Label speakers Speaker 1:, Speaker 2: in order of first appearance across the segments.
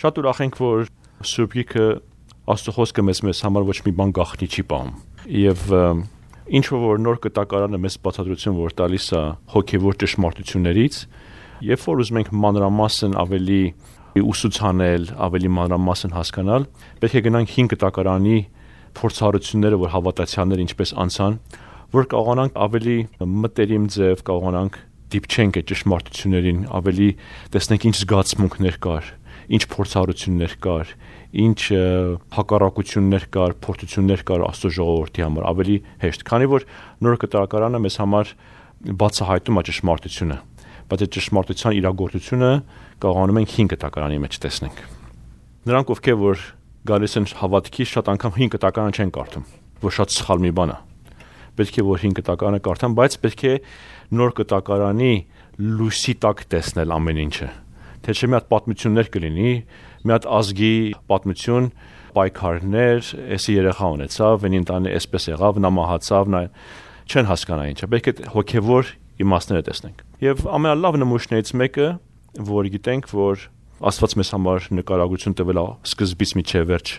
Speaker 1: Շատ ուրախ ենք, որ Սուրբ Գիրքը Աստծո խոսքը մեզ համար ոչ մի բան գաղտնի չի պահում։ Եվ ինչ որ նոր կտակարանը մեզ բացատրություն որ տալիս է հոգևոր ճշմարտություններից, երբ որ ուզում ենք մանրամասն ավելի ուսուցանել, ավելի մանրամասն հասկանալ, պետք է գնանք 5 կտակարանի փորձառությունները, որ հավատացյալները ինչպես անցան, որ կարողանանք ավելի մտերիմ ձև կարողանանք դիպչենք այդ ճշմարտություններին, ավելի տեսնենք ինչ զգացմունքներ կար, ինչ փորձառություններ կար, ինչ հակառակություններ կար, փորձություններ կար Աստծո ժողովրդի համար, ավելի հեշտ, քանի որ նոր կտակարանը մեզ համար բացահայտում է ճշմարտությունը, բայց այդ ճշմարտության իրագործությունը կարողանում ենք 5 կտակարանի մեջ տեսնենք։ Նրանք ովքեր որ գալիս են հավատքի, շատ անգամ 5 կտակարան չեն կարդում, որ շատ սխալ մի բան է։ Պետք է որ 5 կտակարանը կարդան, բայց պետք է նոր կտակարանի լույսի տակ տեսնել ամեն ինչը։ Թե չէ մի հատ պատմություններ կլինի, մի հատ ազգի պատմություն, պայքարներ, էսի երեխա ունեցավ, այն ընտանը էսպես եղավ, նա մահացավ, նա չեն հասկանա ինչը։ Պետք է հոգևոր իմաստները տեսնենք։ Եվ ամենալավ նմուշներից մեկը, որ գիտենք, որ Աստված մեզ համար նկարագրություն տվել է սկզբից մինչև վերջ,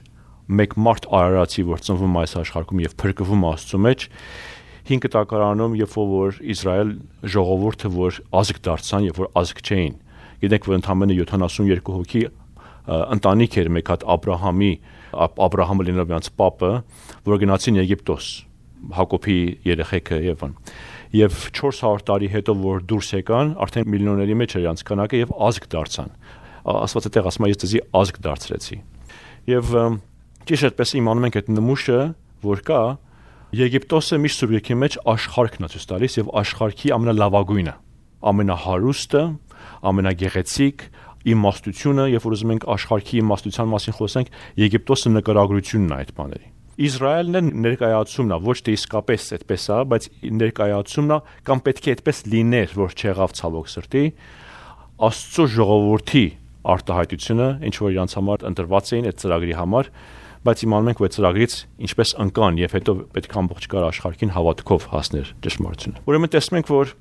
Speaker 1: մեկ մարդ արարածի, որ ծնվում է այս աշխարհում եւ փրկվում է Աստծո մեջ, 5 կտակարանում, երբ որ Իսրայել ժողովուրդը որ ազգ դարձան, երբ որ ազգ չէին, գիտենք, որ ընդամենը 72 հոգի ընտանիք էր մեկ հատ Աբրահամը լինելով իրանց պապը, որ գնացին Եգիպտոս, Հակոբի երեխեքը եւ այն։ Եվ 400 տարի հետո որ դուրս եկան, արդեն միլիոների մեջ էր իրանց քանակը եւ ազգ դարձան։ Աստված այդտեղ ասում է ես դեզի ազգ դարձրեցի։ Եվ ճիշտ այդպես իմանում ենք այդ նմուշը, որ կա Եգիպտոսը միշտ Սուրբ Գրքի մեջ աշխարհքն է ցույց տալիս եւ աշխարհքի ամենալավագույնը, ամենահարուստը, ամենագեղեցիկ իմաստությունը, երբ որ ուզում ենք աշխարհքի իմաստության մասին խոսենք, Եգիպտոսը նկարագրությունն է այդ բաների։ Իսրայելն է ներկայացումն է, ոչ թե իսկապես այդպես է, բայց ներկայացումն է, կամ պետք է այդպես լիներ, որ չեղավ ցավոք սրտի, Աստծո ժողովրդի արտահայտությունը, ինչ որ իրանց համար ընտրված էին այդ ծրագրի համար, բայց իմանում ենք, որ այդ ծրագրից ինչպես ընկան եւ հետո պետք է ամբողջ կար աշխարհին հավատքով հասներ ճշմարտությունը։ Ուրեմն տեսնում ենք, որ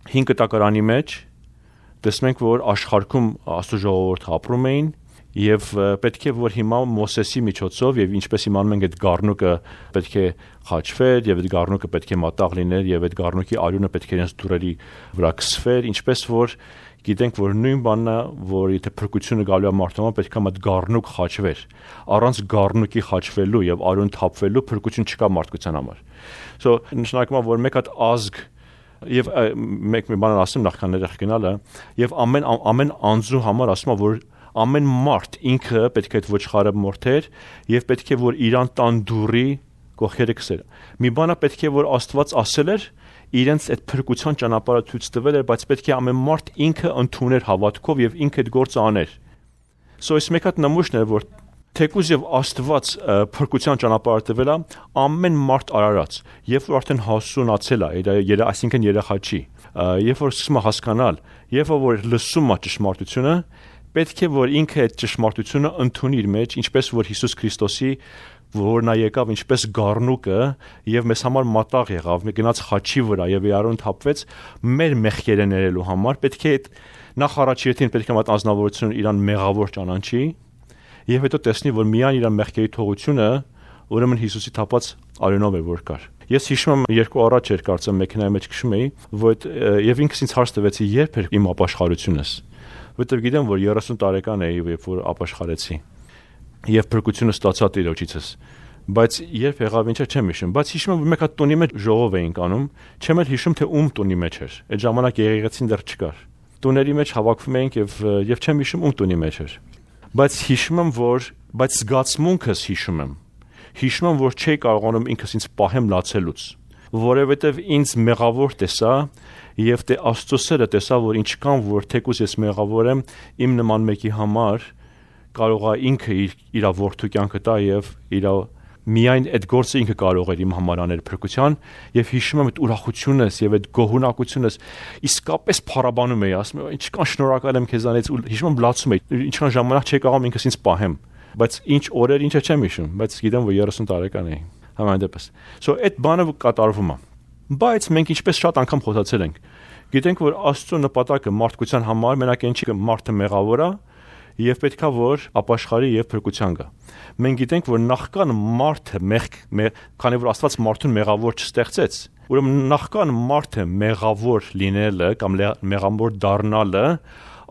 Speaker 1: 5 կտակարանի մեջ տեսնում ենք, որ աշխարհում Աստծո ժողովուրդը ապրում էին եւ պետք է որ հիմա Մոսեսի միջոցով եւ ինչպես իմանում ենք այդ գառնուկը պետք է խաչվեր եւ այդ գառնուկը պետք է մատաղ լիներ եւ այդ գառնուկի արյունը պետք է իրենց դուրերի վրա քսվեր, ինչպես որ գիտենք, որ նույն բանն է, որ եթե փրկությունը գալու է մարդու պետք է այդ գառնուկ խաչվեր։ Առանց գառնուկի խաչվելու եւ արյուն թափվելու փրկություն չկա մարդկության համար։ So նշանակում է, որ մեկ հատ ազգ եւ մեկ մի բան ասեմ նախքան ներեղ գնալը եւ ամեն անձու համար ասում է, որ ամեն մարդ ինքը պետք է այդ ոչխարը մորթեր եւ պետք է որ իրան տան դուրի գողերը քսեր։ Մի բանը պետք է որ Աստված ասել էր իրենց այդ փրկության ճանապարհը ցույց տվել էր, բայց պետք է ամեն մարդ ինքը ընդուներ հավատքով եւ ինքը այդ գործը աներ։ So այս մեկ հատ նմուշն է, որ թեկուզ եւ Աստված փրկության ճանապարհը տվել է, ամեն մարդ արարած, երբ որ արդեն հասունացել է, այսինքն երեխա չի, երբ որ սկսում է հասկանալ, երբ որ լսում է ճշմարտությունը, պետք է որ ինքը այդ ճշմարտությունը ընդունի իր մեջ, ինչպես որ Հիսուս Քրիստոսի որ նա եկավ ինչպես գառնուկը եւ մեզ համար մատաղ եղավ, մի գնաց խաչի վրա եւ արյուն թափվեց մեր մեղքերը ներելու համար, պետք է նախ առաջին պետք է այդ անձնավորությունը իրան մեղավոր ճանաչի եւ հետո տեսնի, որ միայն իր մեղքերի թողությունը ուրեմն Հիսուսի թափած արյունով է որ կար։ Ես հիշում եմ երկու առաջ էր կարծեմ մեքենայի մեջ քշում էի, որ եւ ինքս ինձ հարց տվեցի երբ էր իմ ապաշխարությունս, որտեղ գիտեմ, որ 30 տարեկան էի, երբ որ ապաշխարեցի եւ փրկությունը ստացա Տիրոջիցս, բայց երբ եղավ ինչա չեմ հիշում, բայց հիշում եմ մեկ հատ տունի մեջ ժողով էինք անում, չեմ էլ հիշում թե ում տունի մեջ էր, այդ ժամանակ եղեղեցին դեռ չկար, տուների մեջ հավաքվում էինք եւ չեմ հիշում ում տունի մեջ էր, բայց հիշում եմ բայց զգացմունքս հիշում եմ որ չէի կարողանում ինքս ինձ պահեմ լացելուց, որովհետեւ ինձ մեղավոր տեսա եւ դե Աստծո սերը տեսա, որ ինչքան որ թեկուզ ես մեղավոր եմ, իմ նման մեկի համար կարող է ինքը իր որդու կյանքը տա եւ իր միայն այդ գործը ինքը կարող էր իմ համար անել փրկության եւ հիշում եմ այդ ուրախությունս եւ այդ գոհունակությունս իսկապես փառաբանում էի, ասում եմ ինչքան շնորհակալ եմ քեզանից ու հիշում եմ լացում էի, ինչքան ժամանակ չէի կարող ինքս ինձ պահեմ, բայց ինչ օրեր ինչա չեմ հիշում, բայց գիտեմ որ 30 տարեկան էի, համանդեպս։ So այդ բանը կատարվում է, բայց մենք ինչպես շատ անգամ խոսացել ենք, գիտենք որ Աստծո նպատակը մարդկության համար մենակ այն չի, մարդը մեղավոր է եւ պետքա որ ապաշխարի եւ փրկության գա։ Մենք գիտենք, որ նախքան մարդը քանի որ Աստված մարդուն մեղավոր չստեղծեց, ուրեմն նախքան մարդը մեղավոր լինելը կամ մեղավոր դառնալը,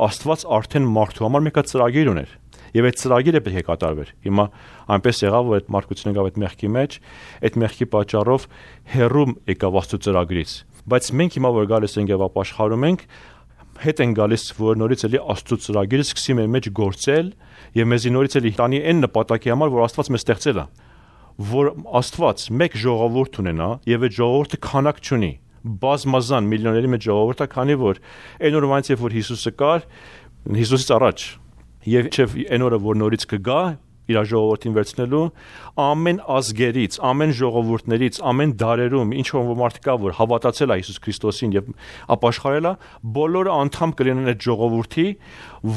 Speaker 1: Աստված արդեն մարդու համար մեկ ծրագիր ուներ։ Եվ այդ ծրագիրը պետք է կատարվեր։ Հիմա այնպես եղավ, որ այդ մարդկությունը եկավ այդ մեղքի մեջ, այդ մեղքի պատճառով հեռու եկավ Աստծո ծրագրից։ Բայց մենք հիմա որ գալիս ենք եւ ապաշխարում ենք, հետ են գալիս, որ նորից էլի Աստծո ծրագիրը սկսի մեր մեջ գործել եւ մեզի նորից էլի տանի այն նպատակի համար, որ Աստված մեզ ստեղծել է, որ Աստված մեկ ժողովուրդ ունենա եւ այդ ժողովուրդը քանակ չունի, բազմազան միլիոների մեջ ժողովուրդ է, քանի որ այն օրվանից երբ որ Հիսուսը կար, Հիսուսից առաջ եւ այն օրը որ նորից կգա իր ժողովրդին վերցնելու, ամեն ազգերից, ամեն ժողովուրդներից, ամեն դարերում ինչ որ մարդ կա, որ հավատացել է Հիսուս Քրիստոսին եւ ապաշխարել է, բոլորը անդամ կլինեն այդ ժողովրդի,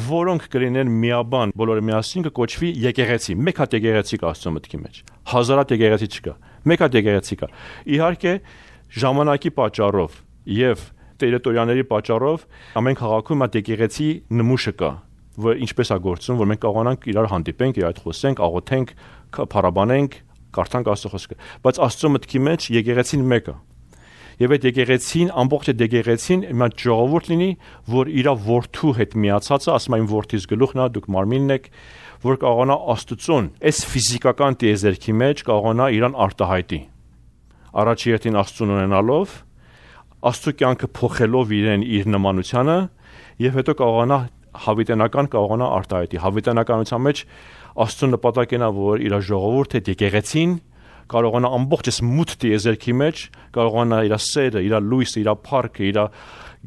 Speaker 1: որոնք կլինեն միաբան, բոլորը միասին կկոչվի եկեղեցի։ Մեկ հատ եկեղեցի կա Աստծո մտքի մեջ։ Հազարատ եկեղեցի չկա։ Մեկ հատ եկեղեցի կա։ Իհարկե, ժամանակի պատճառով եւ տերիտորիաների պատճառով ամեն քաղաքում այդ եկեղեցի նմուշը կա, որ ինչպես է գործում, որ մենք կարողանանք իրար հանդիպենք, իրար հետ խոսենք, աղոթենք, փառաբանենք, կարդանք Աստծո խոսքը։ Բայց Աստծո մտքի մեջ եկեղեցին մեկը։ Եվ այդ եկեղեցին, ամբողջ այդ եկեղեցին մի ժողովուրդ լինի, որ իր որդու հետ միացած է, ասում այն որդիս գլուխն է, դուք մարմինն եք, որ կարողանա Աստծուն, այս ֆիզիկական տիեզերքի մեջ կարողանա իրան արտահայտի։ Առաջի հերթին Աստծուն ունենալով, Աստծո կյանքը փոխելով իրեն իր նմանությանը, եւ հետո կարողանա հավիտենական կարողանա արտահայտի։ Հավիտենականության մեջ Աստծո նպատակն է, որ իր ժողովուրդը եկեղեցին կարողանա ամբողջ այս մութ տիեզերքի մեջ կարողանա իր սերը, իր լույսը, իր փառքը, իր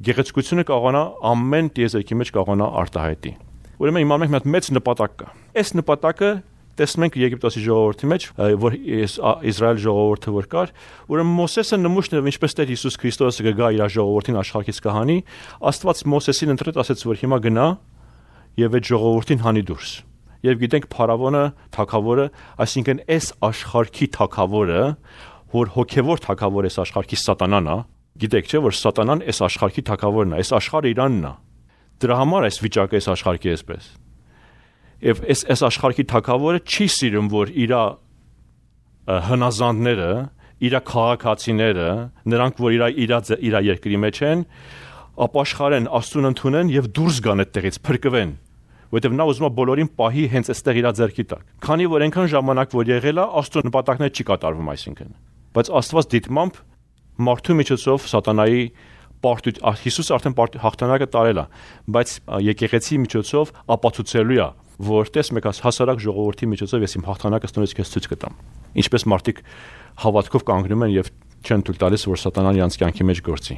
Speaker 1: գեղեցկությունը կարողանա ամեն տիեզերքի մեջ կարողանա արտահայտի։ Ուրեմն հիմա մենք մի հատ մեծ նպատակ կա։ Այս նպատակը տեսնում ենք Եգիպտոսի ժողովրդի մեջ, որ Իսրայել ժողովուրդը որ կար, ուրեմն Մոսեսը նմուշն էր, ինչպես Տեր Հիսուս Քրիստոսը կգա իր ժողովրդին աշխարհից կհանի, Աստված Մոսեսին ընտրեց, ասեց, որ հիմա գնա եւ այդ ժողովրդին հանի դուրս։ Եվ գիտենք Փարավոնը, թագավորը, այսինքն այս աշխարհի թագավորը, որ հոգևոր թագավոր այս աշխարհի Սատանան է, գիտեք չէ, որ Սատանան այս աշխարհի թագավորն է, այս աշխարհը իրանն է։ Դրա համար այս վիճակը այս աշխարհի էսպես։ Եվ այս աշխարհի թագավորը չի սիրում, որ իր հնազանդները, իր քաղաքացիները, նրանք, որ իր երկրի մեջ են, ապաշխարեն, Աստծուն ընդունեն եւ դուրս գան այդտեղից, փրկվեն, որովհետեւ նա ուզում է բոլորին պահի հենց այստեղ իր ձեռքի տակ։ Քանի որ այնքան ժամանակ որ եղել է, Աստծո նպատակները չի կատարվում, այսինքն։ Բայց Աստված դիտմամբ մարդու միջոցով Սատանայի Հիսուս արդեն հաղթանակը տարել է, բայց եկեղեցի միջոցով ապացուցելու է, որ տես մեկ հասարակ ժողովրդի միջոցով ես իմ հաղթանակը ստորից քեզ ցույց կտամ։ Ինչպես մարդիկ հավատքով կանգնում են եւ չեն թույլ տալիս, որ Սատանան իրանց կյանքի մեջ գործի։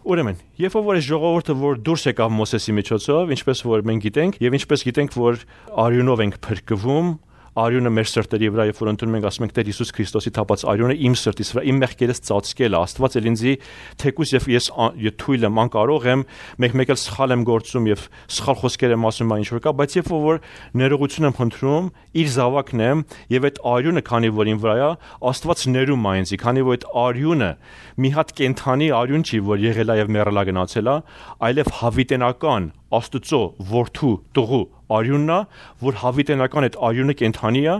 Speaker 1: Ուրեմն, երբ որ այս ժողովուրդը որ դուրս եկավ Մոսեսի միջոցով, ինչպես որ մենք գիտենք, եւ ինչպես գիտենք, որ արյունով ենք փրկվում, արյունը մեր սրտերի վրա, երբ որ ընդունում ենք, ասում ենք Տեր Հիսուս Քրիստոսի թափած արյունը իմ սրտից վրա, իմ մեղքերից ծածկել է, Աստված էլ ինձի թեկուզ եւ ես թույլ եմ, անկարող եմ, մեկ էլ սխալ եմ գործում եւ սխալ խոսքեր եմ ասում, ինչ որ կա, բայց երբ որ ներողություն եմ խնդրում, իր զավակն եմ եւ այդ արյունը, քանի որ ին վրա է, Աստված ներում է ինձ, քանի որ այդ արյունը մի հատ կենթանի արյուն չի, որ եղել է եւ մեռել է գնացել է, այլև հավիտենական Աստծո որդու տղու արյունն է, որ հավիտենական այդ արյունը կենթանի է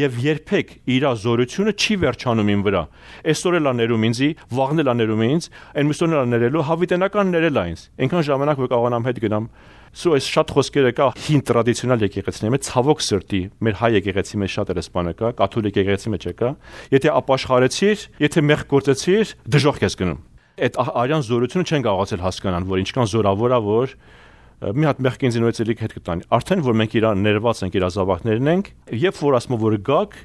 Speaker 1: եւ երբեք իր զորությունը չի վերջանում ին վրա։ Այսօր էլ ներում ինձի, վաղն էլ ներում ինձ, այն մյուսօրն էլ ներելու, հավիտենական ներել է ինձ։ Այնքան ժամանակ որ կարողանամ հետ գնամ։ Սո այս շատ խոսքերը կա հին տրադիցիոնալ եկեղեցիների մեջ, ցավոք սրտի, մեր հայ եկեղեցի մեջ շատ էս բանը կա, կաթոլիկ եկեղեցի մեջ կա։ Եթե ապաշխարեցիր, եթե մեղք գործեցիր, դժոխք ես գնում։ Այդ արյան զորությունը չեն կարողացել հասկանալ, որ ինչքան զորավոր է, որ մի հատ մեղք ինձ նույնից էլի հետ կտանի։ Արդեն որ մենք իրար ներված ենք, իր զավակներն ենք, երբ որ ասում որ գաք,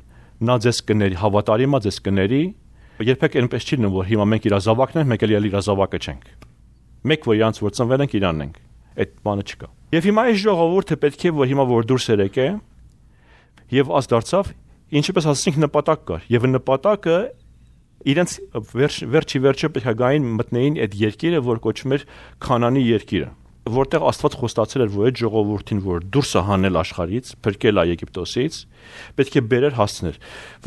Speaker 1: նա ձեզ կների, հավատարիմ է ձեզ կների, երբեք այնպես չի լինում, որ հիմա մենք իր զավակն ենք, մենք էլ իր զավակը չենք։ Մեկ որ իրանց որ ծնվել ենք, իրանն ենք։ Այդ բանը չկա։ Եվ հիմա այս ժողովուրդը պետք է որ հիմա որ դուրս եկե, եւ աս դարձավ, ինչպես ասացինք նպատակ կար, եւ նպատակը իրենց վերջը պետք է գային մտնեին այդ երկիրը, որ կոչվում էր Քանանի երկիրը, որտեղ Աստված խոստացել էր, որ այդ ժողովրդին, որ դուրս է հանել աշխարհից, փրկել է Եգիպտոսից, պետք է բերեր հասցներ,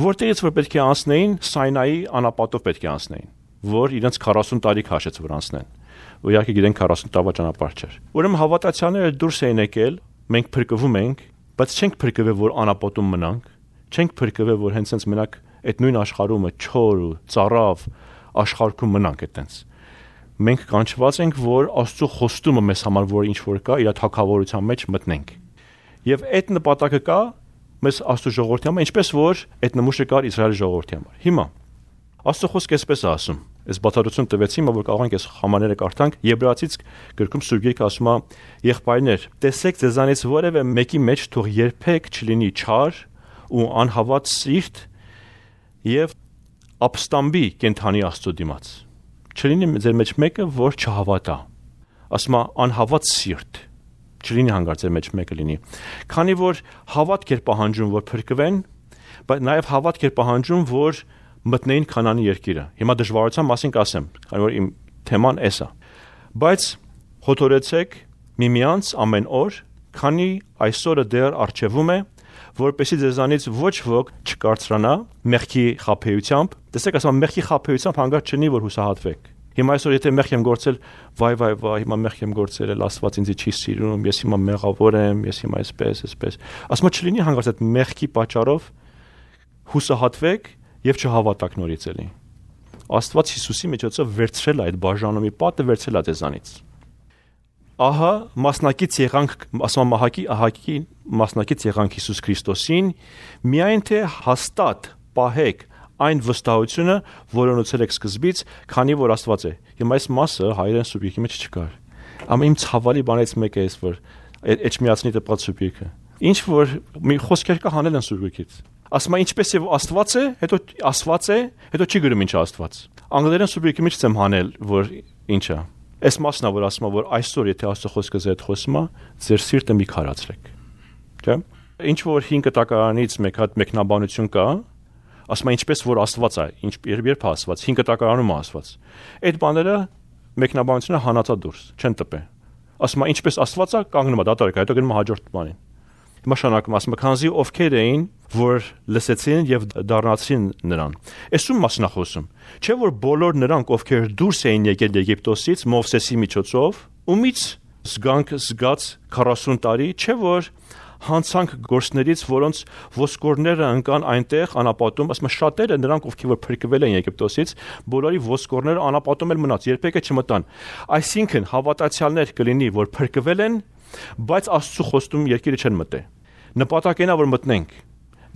Speaker 1: որտեղից որ պետք է անցնեին Սայնայի անապատով պետք է անցնեին, որ իրենց 40 տարի քաշեց որ անցնեն։ Ու իհարկե գիտենք 40 տարվա ճանապարհ չէր։ Ուրեմն հավատացյալները դուրս էին եկել մենք փրկվում ենք, բայց չենք փրկվել, որ անապատում մնանք, չենք փրկվել, որ հենց այնց մենակ այդ նույն աշխարհումը չոր ու ծառավ աշխարհում մնանք այդտենց։ Մենք կանչված ենք, որ Աստծո խոստումը մեզ համար որ ինչ որ կա, իր թագավորության մեջ մտնենք։ Եվ այդ նպատակը կա մեզ Աստծո ժողովրդի համար, ինչպես որ այդ նմուշը կար Իսրայելի ժողովրդի համար։ Հիմա Աստծո խոսքը այսպես է ասում։ Այս բացատրություն տվեցի, որ կարող ենք այս համաները կարդանք Եբրայեցից գրքում Սուրբ Գիրքը ասում է. «Եղբայրներ, տեսեք ձեզանից որևէ մեկի մեջ թող երբեք չլինի չար ու անհավատ սիրտ եւ ապստամբի կենթանի Աստծո դիմաց։ Չլինի ձեր մեջ մեկը, որ չհավատա»։ Ասում է անհավատ սիրտ։ Չլինի հանգար ձեր մեջ մեկը լինի։ Քանի որ հավատք էր պահանջում, որ փրկվեն, բայց նաեւ հավատք էր պահանջում, որ մտնեին Քանանի երկիրը։ Հիմա դժվարության մասին կասեմ, քանի որ իմ թեման էս է։ Բայց հորդորեցեք միմյանց ամեն օր, քանի այսօրը դեռ առջևում է, որպեսզի ձեզանից ոչ ոք չկարծրանա մեղքի խաբեությամբ։ Տեսեք, ասում եմ մեղքի խաբեությամբ հանգար չնի, որ հուսահատվեք։ Հիմա այսօր եթե մեղք եմ գործել, վայ, հիմա մեղք եմ գործել, Աստված ինձ չի սիրում, ես հիմա մեղավոր եմ, ես հիմա այսպես։ Ասում եմ չլինի հանգարց այդ մեղքի պատճառով հուսահատվեք եւ չհավատաք նորից էլի։ Աստված Հիսուսի միջոցով վերցրել է այդ բաժանումի պատը, վերցրել է ձեզանից։ Ահա մասնակից եղանք, ասում եմ ահակի մասնակից եղանք Հիսուս Քրիստոսին, միայն թե հաստատ պահեք այն վստահությունը, որը ունեցել եք սկզբից, քանի որ Աստված է։ Հիմա այս մասը հայերեն Սուրբ Գիրքի մեջ չկար։ Ամեն իմ ցավալի բանից մեկը էս, որ Էջմիածնի տպած Սուրբ Գիրքը։ Ինչ որ մի խոսքեր կա հանել են Սուրբ Գիրքից։ Ասում է ինչպես եւ Աստված է, հետո Աստված է, հետո չի գրում ինչ է Աստված։ Անգլերեն Սուրբ Գիրքի մեջ եմ հանել, որ ինչ է։ Այս մասն է, որ ասում է, որ այսօր եթե Աստծո խոսքը ձեզ հետ խոսում է, ձեր սիրտը մի քարացրեք։ Չէ՞։ Ինչ որ 5 տակարանից մեկ հատ մեկնաբանություն կա, ասում է ինչպես որ Աստված է, երբ է Աստված, 5 տակարանում է Աստված։ Այդ բաները մեկնաբանությունը հանածա դուրս, չեն տպե։ Ասում է ինչպես Աստված է, կանգնում է դատարկ, հետո գնում է հաջորդ բանին։ Հիմա շարունակում ասում է քանզի ովքեր էին, որ լսեցին եւ դառնացին նրան։ Այսում մասն է խոսում։ Չէ՞ որ բոլոր նրանք, ովքեր դուրս էին եկել Եգիպտոսից Մովսեսի միջոցով, ումից զգաց 40 տարի, չէ՞ որ հանցանք գործներից, որոնց ոսկորները ընկան այնտեղ անապատում, ասում շատերը նրանք, ովքեր որ փրկվել են Եգիպտոսից, բոլորի ոսկորները անապատում էլ մնաց, երբեք չմտան։ Այսինքն հավատացյալներ կլինի, որ փրկվել են, բայց Աստծո խոստում երկիրը չեն մտե։ Նպատակն է որ մտնենք,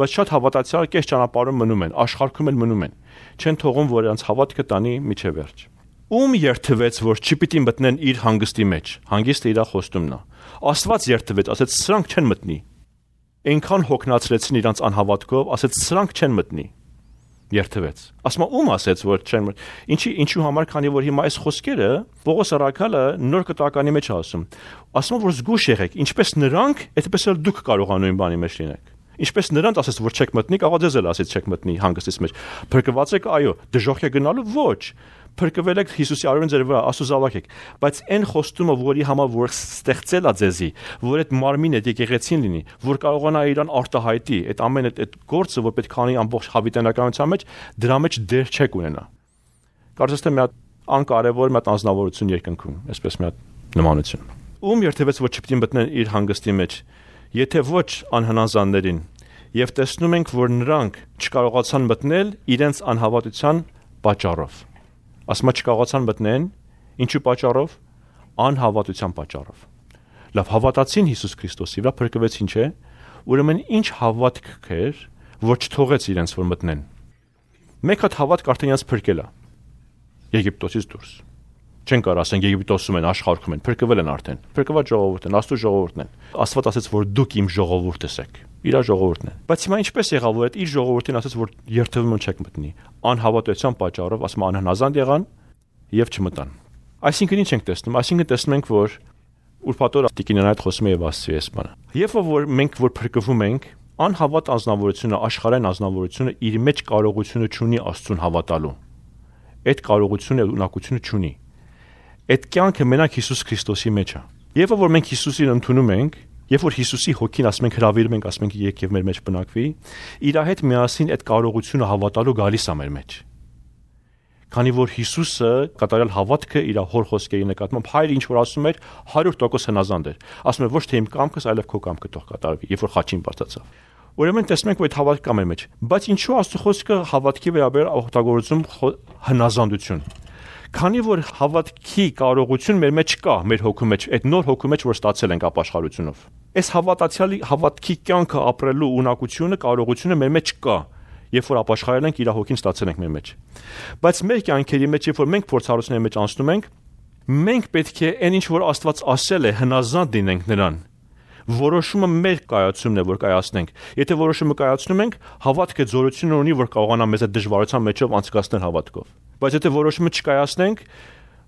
Speaker 1: բայց շատ հավատացյալ կես ճանապարհում մնում են, աշխարհում էլ մնում են, չեն թողում որ նրանց հավատքը տանի միջև վերջ։ Ում երթվեց, որ չպիտի մտնեն իր հանգստի մեջ, հանգիստը իր խոստումն է։ Աստված երթվեց, ասեց սրանք չեն մտնի։ Այնքան հոգնածրեցին իրանց անհավատքով, ասեց սրանք չեն մտնի։ Երթվեց։ Ասում ում ասեց որ չեն ինչու համար, քանի որ հիմա այս խոսքերը Պողոս առաքյալը նոր կտականի մեջ ասում։ Ասում որ զգուշ եղեք, ինչպես նրանք, այդպես էլ դուք կարող եք նույն բանի մեջ լինեք։ Ինչպես նրանց ասեց որ չեք մտնի, կարող ձեզ էլ ասեց չեք մտնի հանգստից մեջ։ Փրկված եք, այո, դժոխք է գնալու, ոչ։ Փրկվել եք Հիսուսի արյունը ձեր վրա, Աստծո զավակ եք, բայց այն խոստումը, որի համար որ ստեղծել է ձեզի, որ այդ մարմինը եկեղեցին լինի, որ կարողանա իրան արտահայտի, այդ ամեն այդ գործը, որ պետք է անի ամբողջ հավիտենականության մեջ, դրա մեջ դեր չեք ունենա։ Կարծես թե մի հատ անկարևոր մի հատ անձնավորություն երկնքում, այսպես մի հատ նմանություն։ Ում երթևեց որ չպիտի մտնեն իր հանգստի մեջ, եթե ոչ անհնազանդներին, եւ տեսնում ենք, որ նրանք չկարողացան մտնել իրենց անհավատության պատճառով։ Ասма չկարողացան մտնեն, ինչու պատճառով, անհավատության պատճառով։ Լավ հավատացին Հիսուս Քրիստոսի վրա, փրկվեցին, չէ՞։ Ուրեմն ինչ հավատք կեր, որ չթողեց իրենց որ մտնեն։ Մեկ հատ հավատք արդեն իրենց փրկել է Եգիպտոսից դուրս։ Չեն կարող ասեն Եգիպտոսում են, աշխարհում են, փրկվել են արդեն։ Փրկված ժողովուրդ են, Աստծո ժողովուրդն են։ Աստված ասեց, որ դուք իմ ժողովուրդս եք։ Իր ժողովուրդն է։ Բայց հիմա ինչպես եղավ, որ այդ իր ժողովրդին ասեց, որ երթվում չեք մտնի։ Անհավատության պատճառով, ասում անհնազանդ եղան եւ չմտան։ Այսինքն ինչ ենք տեսնում։ Այսինքն տեսնում ենք, որ ուրփաթորը տիկինն այդ խոսում է եւ ասցի էս բանը։ Երբ որ մենք որ փրկվում ենք, անհավատ անձնավորությունը, աշխարհային անձնավորությունը իր մեջ կարողությունը չունի Աստծուն հավատալու։ Այդ կարողությունը ունակությունը չունի։ Այդ կյանքը մենակ Հիսուս Քրիստոսի մեջ է։ Երբ որ մենք Հիսուսին ընդունում ենք, երբ որ Հիսուսի հոգին ասում ենք հրավիրում ենք, ասում ենք եք եւ մեր մեջ բնակվի, իր հետ միասին այդ կարողությունը հավատալու գալիս է մեր մեջ։ Քանի որ Հիսուսը կատարյալ հավատքը իր հոր խոսքերի նկատմամբ հայրը ինչ որ ասում էր 100% հնազանդ էր։ Ասում էր ոչ թե իմ կամքս, այլև քո կամքը թող կատարվի, երբ որ խաչին բարձրացավ։ Ուրեմն տեսնում ենք, որ այդ հավատքը կա մեր մեջ, բայց ինչու Աստծո խոսքը հավատքի վերաբերյալ օգտագործում հնազանդություն։ Քանի որ հավատքի կարողություն մեր մեջ կա, մեր հոգու մեջ, այդ նոր հոգու մեջ, որ ստացել ենք ապաշխարությունով։ Այս հավատացյալի հավատքի կյանքը ապրելու ունակությունը, կարողությունը մեր մեջ կա, երբ որ ապաշխարել ենք, իր հոգին ստացել ենք մեր մեջ։ Բայց մեր կյանքերի մեջ, երբ որ մենք փորձառությունների մեջ անցնում ենք, մենք պետք է այն ինչ որ Աստված ասել է, հնազանդ լինենք նրան։ Որոշումը մեր կայացումն է, որ կայացնենք։ Եթե որոշումը կայացնում ենք, հավատքը զորություն ունի, որ կարողանա մեզ այդ դժվարության մեջով անցկացնել հավատքով։ Բայց եթե որոշումը չկայացնենք,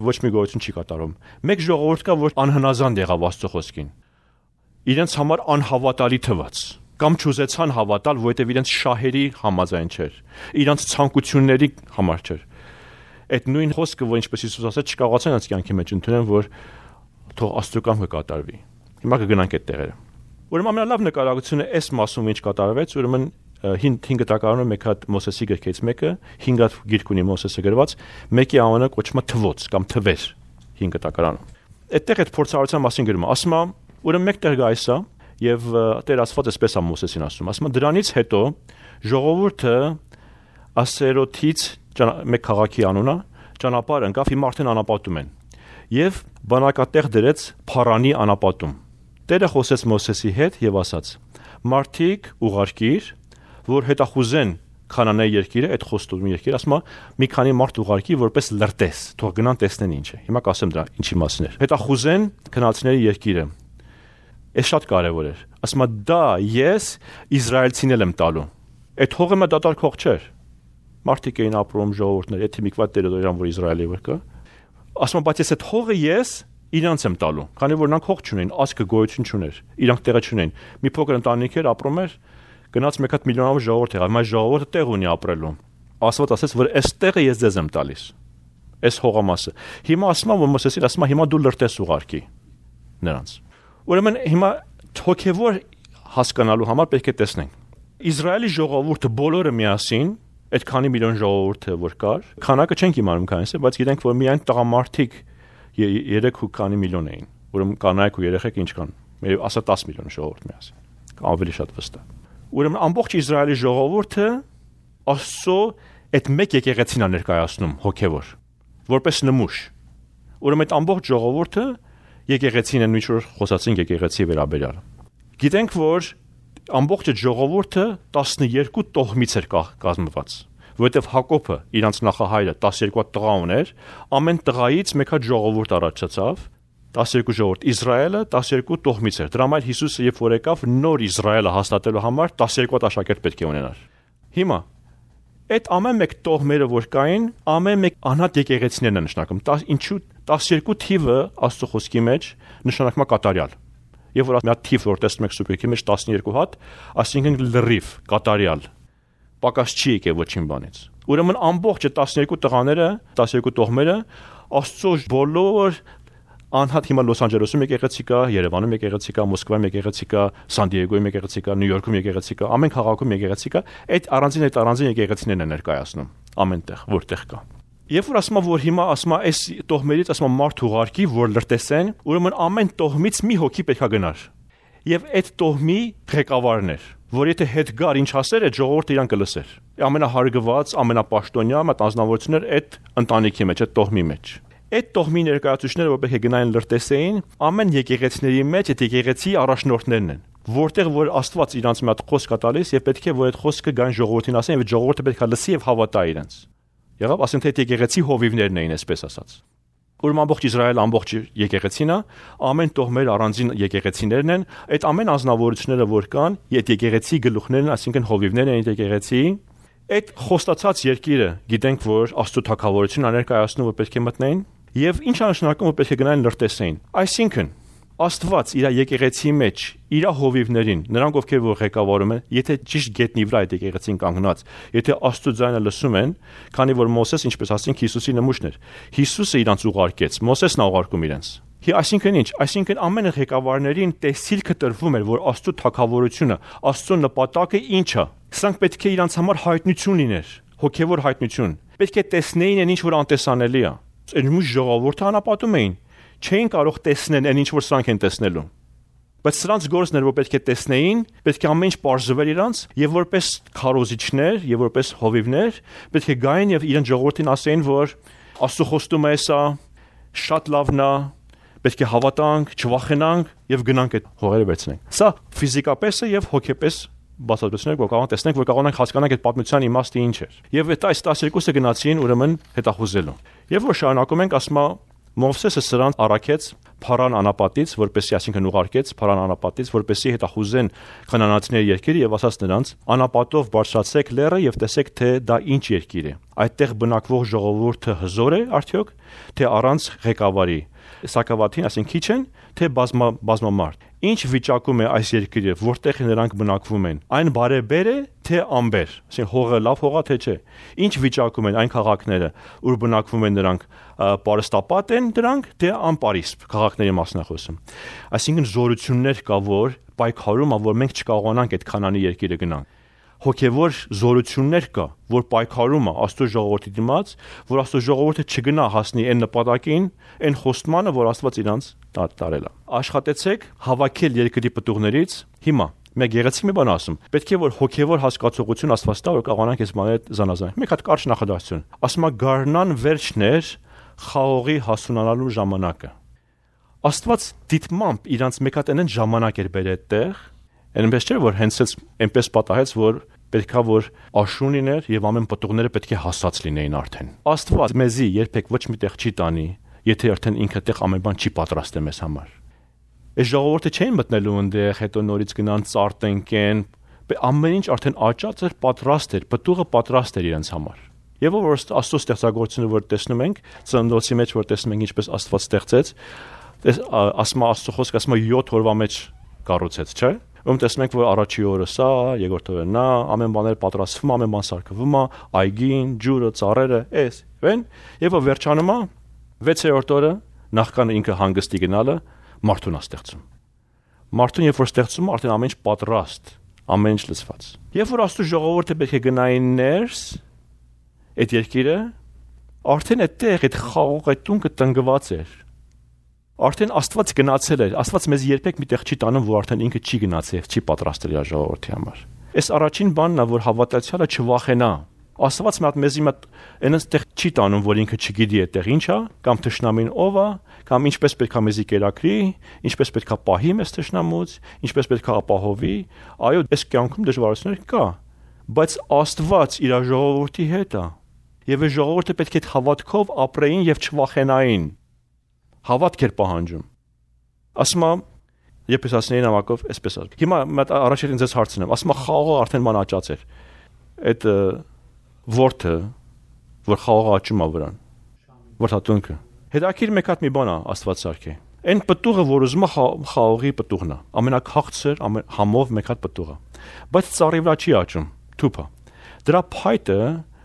Speaker 1: ոչ մի գոյություն չի կատարում։ Մեկ ժողովուրդ կա, որ անհնազանդ եղավ Աստծո խոսքին։ Իրենց համար անհավատալի թվաց, կամ չուզեցան հավատալ, որովհետև իրենց շահերի համաձայն չէր, իրենց ցանկությունների համար չէր։ Այդ նույն խոսքը, որ ինչպես Հիսուս ասաց, չկարողացան իրենց կյանքի մեջ ընդունել, որ թող Աստծո կամքը կատարվի։ Հիմա կգնանք այդ տեղերը։ Ուրեմն ամենալավ նկարագրությունը այս մասում ինչ կատարվեց, ուրեմն 5 տակարանում մեկ հատ Մոսեսի գրքից մեկը, 5 հատ գիրք ունի Մոսեսը գրված, մեկի անունը կոչվում է թվոց կամ թվեր 5 տակարանում։ Այդտեղ այդ փորձառության մասին գրում է, ասում է, ուրեմն մեկ տեղ գայս է եւ Տեր Աստված էսպես է Մոսեսին ասում, ասում է դրանից հետո ժողովուրդը Ասերոթից մեկ քաղաքի անունը ճանապարհ ընկավ, հիմա արդեն անապատում են եւ բանակատեղ դրեց Փարանի անապատում։ Տերը խոսեց Մոսեսի հետ եւ ասաց. «Մարդիկ ուղարկիր, որ հետախուզեն Քանանայի երկիրը, այդ խոստովի երկիրը, ասում է, մի քանի մարդ ուղարկի, որպես լրտես, թող գնան տեսնեն ինչ է»։ Հիմա կասեմ դրա ինչի մասին է։ Հետախուզեն քնացիների երկիրը։ Այս շատ կարևոր էր։ Ասում է, դա ես իսրայելցինել եմ տալու։ Այդ հողը մը դատարկ հող չէր։ Մարդիկ էին ապրում, ժողովուրդներ, եթե մի քիչ տերիտորիան, որ Իսրայելի վրա կա։ Ասում է, բայց այդ հողը ես իրանց եմ տալու, քանի որ նրանք հող չունեն, ազգը գոյություն չուներ, իրանք տեղը չունեն։ Մի փոքր ընտանիք էր ապրում էր, գնաց մեկ հատ միլիոնավոր ժողովուրդ եղավ, բայց ժողովուրդը տեղ ունի ապրելու։ Աստված ասաց, որ այս տեղը ես ձեզ եմ տալիս։ Այս հողամասը։ Հիմա ասում եմ, որ Մոսեսին ասում է, հիմա դու լրտես ուղարկի նրանց։ Ուրեմն հիմա հոգևոր հասկանալու համար պետք է տեսնենք։ Իսրայելի ժողովուրդը բոլորը միասին, այդ քանի միլիոն ժողովուրդը որ կար, քանակը չենք իմանում քանիսը, բայց գիտենք, որ միայն տղամարդիկ 3 ու քանի միլիոն էին։ Ուրեմն կանայք ու երեխեք ինչ կան։ Մեր ասա 10 միլիոն ժողովուրդ միասին։ Ավելի շատ վստահ։ Ուրեմն ամբողջ Իսրայելի ժողովուրդը Աստծո այդ մեկ եկեղեցին է ներկայացնում հոգևոր, որպես նմուշ։ Ուրեմն այդ ամբողջ ժողովուրդը եկեղեցին են, ինչ որ խոսացին եկեղեցի վերաբերյալ։ Գիտենք, որ ամբողջ ժողովուրդը 12 տոհմից էր կազմված, որովհետև Հակոբը իրանց նախահայրը 12 տղա ուներ, ամեն տղայից մեկ հատ ժողովուրդ առաջացավ, 12 ժողովուրդ, Իսրայելը 12 տոհմից էր։ Դրա համար Հիսուսը երբ որ եկավ նոր Իսրայելը հաստատելու համար 12 աշակերտ պետք է ունենար։ Հիմա այդ ամեն մեկ տոհմերը որ կային, ամեն մեկ անհատ եկեղեցիներն են նշանակում։ Ինչու 12 թիվը Աստծո խոսքի մեջ նշանակում է կատարյալ։ Եվ որ մի հատ թիվ որ տեսնում եք սուպերքի մեջ 12 հատ, այսինքն լրիվ, կատարյալ։ Պակաս չի եկել ոչինչ բանից։ Ուրեմն ամբողջ 12 տղաները, 12 տոհմերը Աստծո բոլոր անհատ հիմա Լոս Անջելեսում եկեղեցի կա, Երևանում եկեղեցի կա, Մոսկվայում եկեղեցի կա, Սան Դիեգոյում եկեղեցի կա, Նյու Յորքում եկեղեցի կա, ամեն քաղաքում եկեղեցի կա, այդ առանձին եկեղեցիներն են ներկայացնում ամենտեղ, որտեղ կա։ Երբ որ ասում եմ, որ հիմա ասում եմ, այս տոհմերից ասում եմ մարդ ուղարկի, որ լրտեսեն, ուրեմն ամեն տոհմից մի հոգի պետք է գնար։ Եվ այդ տոհմի ղեկավարն էր, որ եթե հետ գար ինչ ասեր, այդ ժողովուրդը իրան կլսեր։ Ամենահարգված, ամենապաշտոնյա մտածնավորությունն էր այդ ընտանիքի մեջ, այդ տոհմի մեջ։ Այդ տոհմի ներկայացուցիչները, որ պետք է գնային լրտեսեին, ամեն եկեղեցիների մեջ այդ եկեղեցի առաջնորդներն են, որտեղ որ Աստված իրանց մի հատ խոսք է տալիս եւ պետք է որ այդ խոսքը գան ժողովրդին ասեն եւ ժողովուրդը պետք է լսի եւ հավատա իրենց։ Եղավ, ասենք թե եկեղեցի հովիվներն էին, այսպես ասած։ Ուրեմն ամբողջ Իսրայելը ամբողջ եկեղեցին է, ամեն տոհմեր առանձին եկեղեցիներն են, այդ ամեն ազնվորությունները որ կան, այդ եկեղեցի գլուխներն, այսինքն հովիվներն են եկեղեցի, այդ խոստացած երկիրը, գիտենք որ Աստծո թագավորությունն աներկայացնում որ պետք է մտնեն, եւ ինչ անշնակում որ պետք է գնային լրտեսեին։ Այսինքն Աստված իր եկեղեցի մեջ իր հովիվներին, նրանք ովքեր որ ղեկավարում են, եթե ճիշտ գետնի վրա այդ եկեղեցին կանգնած, եթե Աստծո ձայնը լսում են, քանի որ Մոսես, ինչպես ասենք, Հիսուսի նմուշն էր։ Հիսուսը իրանց ուղարկեց, Մոսեսն է ուղարկում իրենց։ Այսինքն ինչ, այսինքն ամեն ղեկավարներին տեսիլքը տրվում էր, որ Աստծո թագավորությունը, Աստծո նպատակը ինչ է։ Սրանք պետք է իրանց համար հայտնություն լիներ, հոգևոր հայտնություն։ պետք է տեսնեին այն ինչ որ անտեսանելի է։ Այն մյուս ժողովուրդը անապատում էին, չէին կարող տեսնել այն ինչ որ սրանք են տեսնելու։ Բայց սրանց գործն էր, որ պետք է տեսնեին, պետք է ամեն ինչ բարձրվեր իրանց եւ որպես քարոզիչներ եւ որպես հովիվներ պետք է գային եւ իրեն ժողովրդին ասեին, որ Աստծո խոստումը է սա, շատ լավն է, պետք է հավատանք, չվախենանք եւ գնանք այդ հողերը վերցնենք։ Սա ֆիզիկապես է եւ հոգեպես բացատրություններ, որ կարող տեսնենք, որ կարող ենք հասկանանք այդ պատմության իմաստը ինչ էր։ Եվ այդ 12-ը գնացին ուրեմն հետախուզելու։ Եվ որ շարունակում ենք, ասма Մովսեսը սրանց առաքեց Փարան անապատից, որպեսզի այսինքն ուղարկեց Փարան անապատից, որպեսզի հետախուզեն քնանացիների երկիրը եւ ասաց նրանց. անապատով բարձրացեք լեռը եւ տեսեք թե դա ինչ երկիր է։ Այդտեղ բնակվող ժողովուրդը հզոր է արդյոք, թե առանց ղեկավարի։ Սակավաթին, այսինքն քիչ են, թե բազմամարդ։ Ինչ վիճակում է այս երկիրը, որտեղ նրանք բնակվում են։ Այն բարեբեր է, թե անբեր։ Այսինքն հողը լավ հողա թե չէ։ Ինչ վիճակում են այն քաղաքները, ուր բնակվում են նրանք, պարստապատ են դրանք, թե անպարիսպ քաղաքների մասն է խոսում։ Այսինքն զորություններ կա, որ պայքարում, որ մենք չկարողանանք այդ Քանանի երկիրը գնանք։ Հոգևոր զորություններ կա, որ պայքարում է Աստծո ժողովրդի դիմաց, որ Աստծո ժողովուրդը չգնա հասնի այն նպատակին, այն խոստմանը, որ Աստված իրանց տարել է։ Աշխատեցեք հավաքել երկրի պտուղներից։ Հիմա մեկ գեղեցիկ մի բան ասում։ Պետք է որ հոգևոր հասկացողություն Աստված տա, որ կարողանանք այս բաները զանազանել։ Մեկ հատ կարճ նախադասություն։ Ասում է գարնան վերջներ խաղողի հասունանալու ժամանակը։ Աստված դիտմամբ իրանց մեկ հատ այն ժամանակ էր բերել այդտեղ, այնպես չէ որ հենց այնպես պատահեց, որ պետքա որ աշուն լիներ եւ ամեն պտուղները պետք է հասած լինեին արդեն։ Աստված մեզի երբեք ոչ մի տեղ չի տանի, եթե արդեն ինքը տեղ ամեն բան չի պատրաստել մեզ համար։ Այս ժողովուրդը չէին մտնելու այնտեղ, հետո նորից գնան ծարտենկեն, ամեն ինչ արդեն աճած էր, պատրաստ էր, պտուղը պատրաստ էր իրենց համար։ Եվ որ Աստծո ստեղծագործությունը որ տեսնում ենք, ծննդոցի մեջ որ տեսնում ենք ինչպես Աստված ստեղծեց, ասма Աստծո խոսքը ասма 7 օրվա մեջ կառուցեց, չէ՞։ Ում տեսնում ենք, որ առաջի օրը սա, երկրորդ օրը նա, ամեն բաները պատրաստվում, ամեն բան սարքվում է, այգին, ջուրը, ծառերը, էս, վեն, եւ որ վերջանում է 6-րդ օրը, նախքան ինքը հանգստի գնալը, մարդուն է ստեղծում։ Մարդուն երբ որ ստեղծում, արդեն ամեն ինչ պատրաստ, ամեն ինչ լցված։ Երբ որ Աստծո ժողովուրդը պետք է գնային ներս, այդ երկիրը, արդեն այդտեղ այդ խաղող այդ տունը տնկված էր։ Արդեն Աստված գնացել էր, Աստված մեզ երբեք միտեղ չի տանում, որ արդեն ինքը չի գնացել, չի պատրաստել իր ժողովրդի համար։ Այս առաջին բանն է, որ հավատացյալը չվախենա։ Աստված մեզի այնտեղ չի տանում, որ ինքը չգիտի այդտեղ ինչ է, կամ թշնամին ով է, կամ ինչպես պետք է մեզի կերակրի, ինչպես պետք է պահի մեզ թշնամուց, ինչպես պետք է ապահովի։ Այո, այս կյանքում դժվարություններ կա, բայց Աստված իր ժողովրդի հետ է։ Եվ այս ժողովուրդը պետք է հավատքով ապրեին եւ չվախենային։ Հավատք էր պահանջում։ Ասма, երբ ես ասնեի նամակով, այսպես ասում։ Հիմա մտ առաջին ինձ հարցնեմ, ասма խաղողը արդեն ման աճած էր։ Այդ ворթը, որ խաղողը աճում է վրան։ Ворթատունքը։ Հետաքրիր մեկ հատ մի բան է Աստված սարքե։ Այն պտուղը, որ ուզում է խաղողի պտուղն է, ամենակաղցր, համով մեկ հատ պտուղը։ Բայց ծառի վրա չի աճում, թուփ է։ Դրա փայտը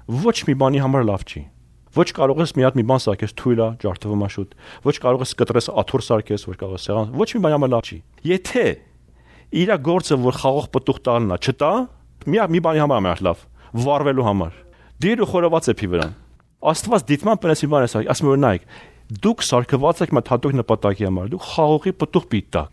Speaker 1: ոչ մի բանի համար լավ չի։ Ոչ կարող ես մի հատ մի բան սարքես թույլ է, ջարդվում է շուտ։ Ոչ կարող ես կտրես աթոռ սարքես, որ կարող ես սեղան։ Ոչ մի բան համար լավ չի։ Եթե իր գործը որ խաղող պտուղ տալն է, չտա, մի բանի համար է լավ, վառվելու համար։ Դիր ու խորոված էփի վրան։ Աստված դիտման պնես մի բան է սարք, ասում որ նայեք, դուք սարքված եք մտ հատուկ նպատակի համար, դուք խաղողի պտուղ պիտի տաք։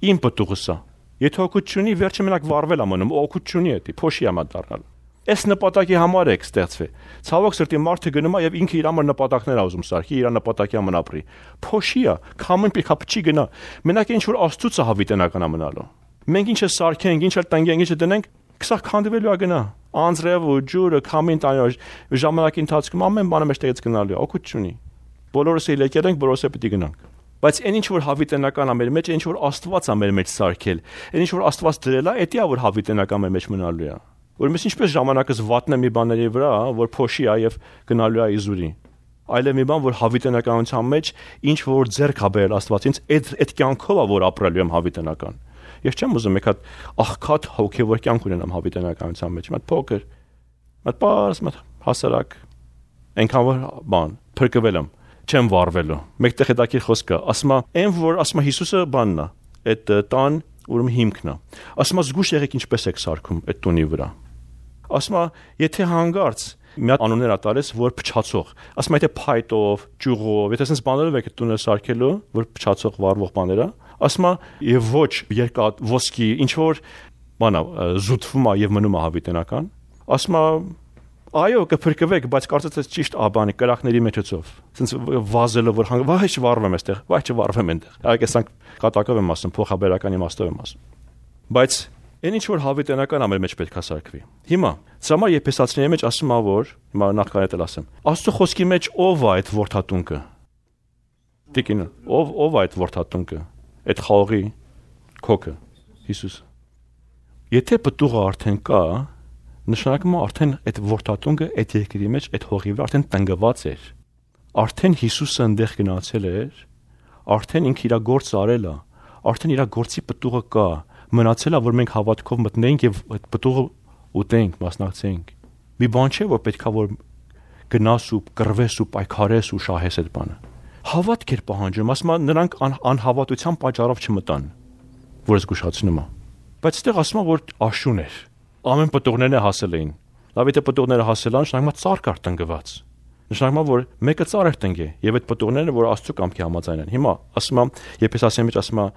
Speaker 1: Իմ պտուղս է։ Եթե օգուտ չունի, վերջը մենակ վառվել է մնում, օգուտ չունի էդի, փոշի է դառնալ։ Այս նպատակի համար եք ստեղծվել։ Ցավոք սրտի մարդը գնում է եւ ինքը իր համար նպատակներ ուզում սարքի, իր նպատակի համար ապրի։ Փոշի է, քամին պիտի քապչի գնա։ Մենակ ինչ որ Աստծուց է հավիտենական մնալու։ Մենք ինչը սարքենք, ինչը տնկենք, ինչը դնենք, քսա քանդվելու է գնա։ Անձրև ու ջուրը, քամին տանյոջ, ժամանակի ընթացքում ամեն բանը մեջտեղից գնալու է, օգուտ չունի։ Բոլորս էլ եկել ենք, բոլորս էլ պիտի գնանք։ Բայց այն ինչ որ հավիտենական է մեր մեջ, ինչ որ Աստված է մեր մեջ սարքել, այն ինչ որ Աստված դրել է, դա է որ հավիտենական մեր մեջ մնալու է։ Որ մենք ինչպես ժամանակս վատնեմ մի բաների վրա, որ փոշի է եւ գնալու է իզուրի։ Այլև մի բան, որ հավիտենականության մեջ ինչ որ ձեռք է բերել Աստվածից, այդ կյանքով է որ ապրելու եմ հավիտենական։ Ես չեմ ուզում եկած աղքատ հոգեվոր կյանք ունենամ հավիտենականության մեջ, մտ փոքր, մտ պարզ, մտ հասարակ, այնքան որ բան, փրկվել եմ, չեմ վառվելու։ Մեկտեղ հետաքրքիր խոսք կա, ասում է, այն որ ասում է Հիսուսը բանն է, այդ տան ուրեմն հիմքն է։ Ասում է զգուշ եղեք ինչպես եք սարքում այդ տունի վրա։ Ասում է, եթե հանգարց մի հատ անուններ ա տալիս, որ փչացող։ Ասում եթե փայտով, ճյուղով, եթե sense բաներով եք տունը սարքելու, որ փչացող վառվող բաներ ա, ասում եւ ոչ երկաթ, ոսկի, ինչ որ բանա զուտվում ա եւ մնում ա հավիտենական։ Ասում այո, կփրկվեք, բայց կարծես թե ճիշտ աբանի կրակների մեջոցով։ Sense վազելը որ վայ չվառվեմ այստեղ, վայ չվառվեմ այնտեղ։ Այգեսանք կատակով եմ ասում, փոխաբերական իմաստով եմ ասում։ Բայց այն ինչ որ հավիտենական ամեն մեջ պետք է սարքվի։ Հիմա սամար Եփեսացիների մեջ ասում ա որ հիմա նախքան էլ ասեմ։ Աստծո խոսքի մեջ ով է այդ որդատունկը։ Տիկին, ով է այդ որդատունկը։ Այդ խաղողի քոքը Հիսուս։ Եթե պտուղը արդեն կա, նշանակում է արդեն այդ որդատունկը այդ երկրի մեջ այդ հողի վրա արդեն տնկված էր։ Արդեն Հիսուսը այնտեղ գնացել էր, արդեն ինքը իր գործը արել է, արդեն իր գործի պտուղը կա։ Մնացել է որ մենք հավատքով մտնենք եւ այդ պտուղը ուտենք, մասնակցենք։ Մի բան չէ որ պետքա որ գնաս ու կռվես ու պայքարես ու շահես այդ բանը։ Հավատք էր պահանջում, ասում է նրանք անհավատության պատճառով չմտան, որ զգուշացնում է։ Բայց այդտեղ ասում է որ աշուն էր։ Ամեն պտուղներն հասել էին։ Լավ եթե պտուղները հասել են, նշանակում է ծառ կար տնկված։ Նշանակում է որ մեկը ծառ էր տնկե եւ այդ պտուղները որ Աստծո կամքի համաձայն են։ Հիմա ասում է Եփեսացիների մեջ ասում է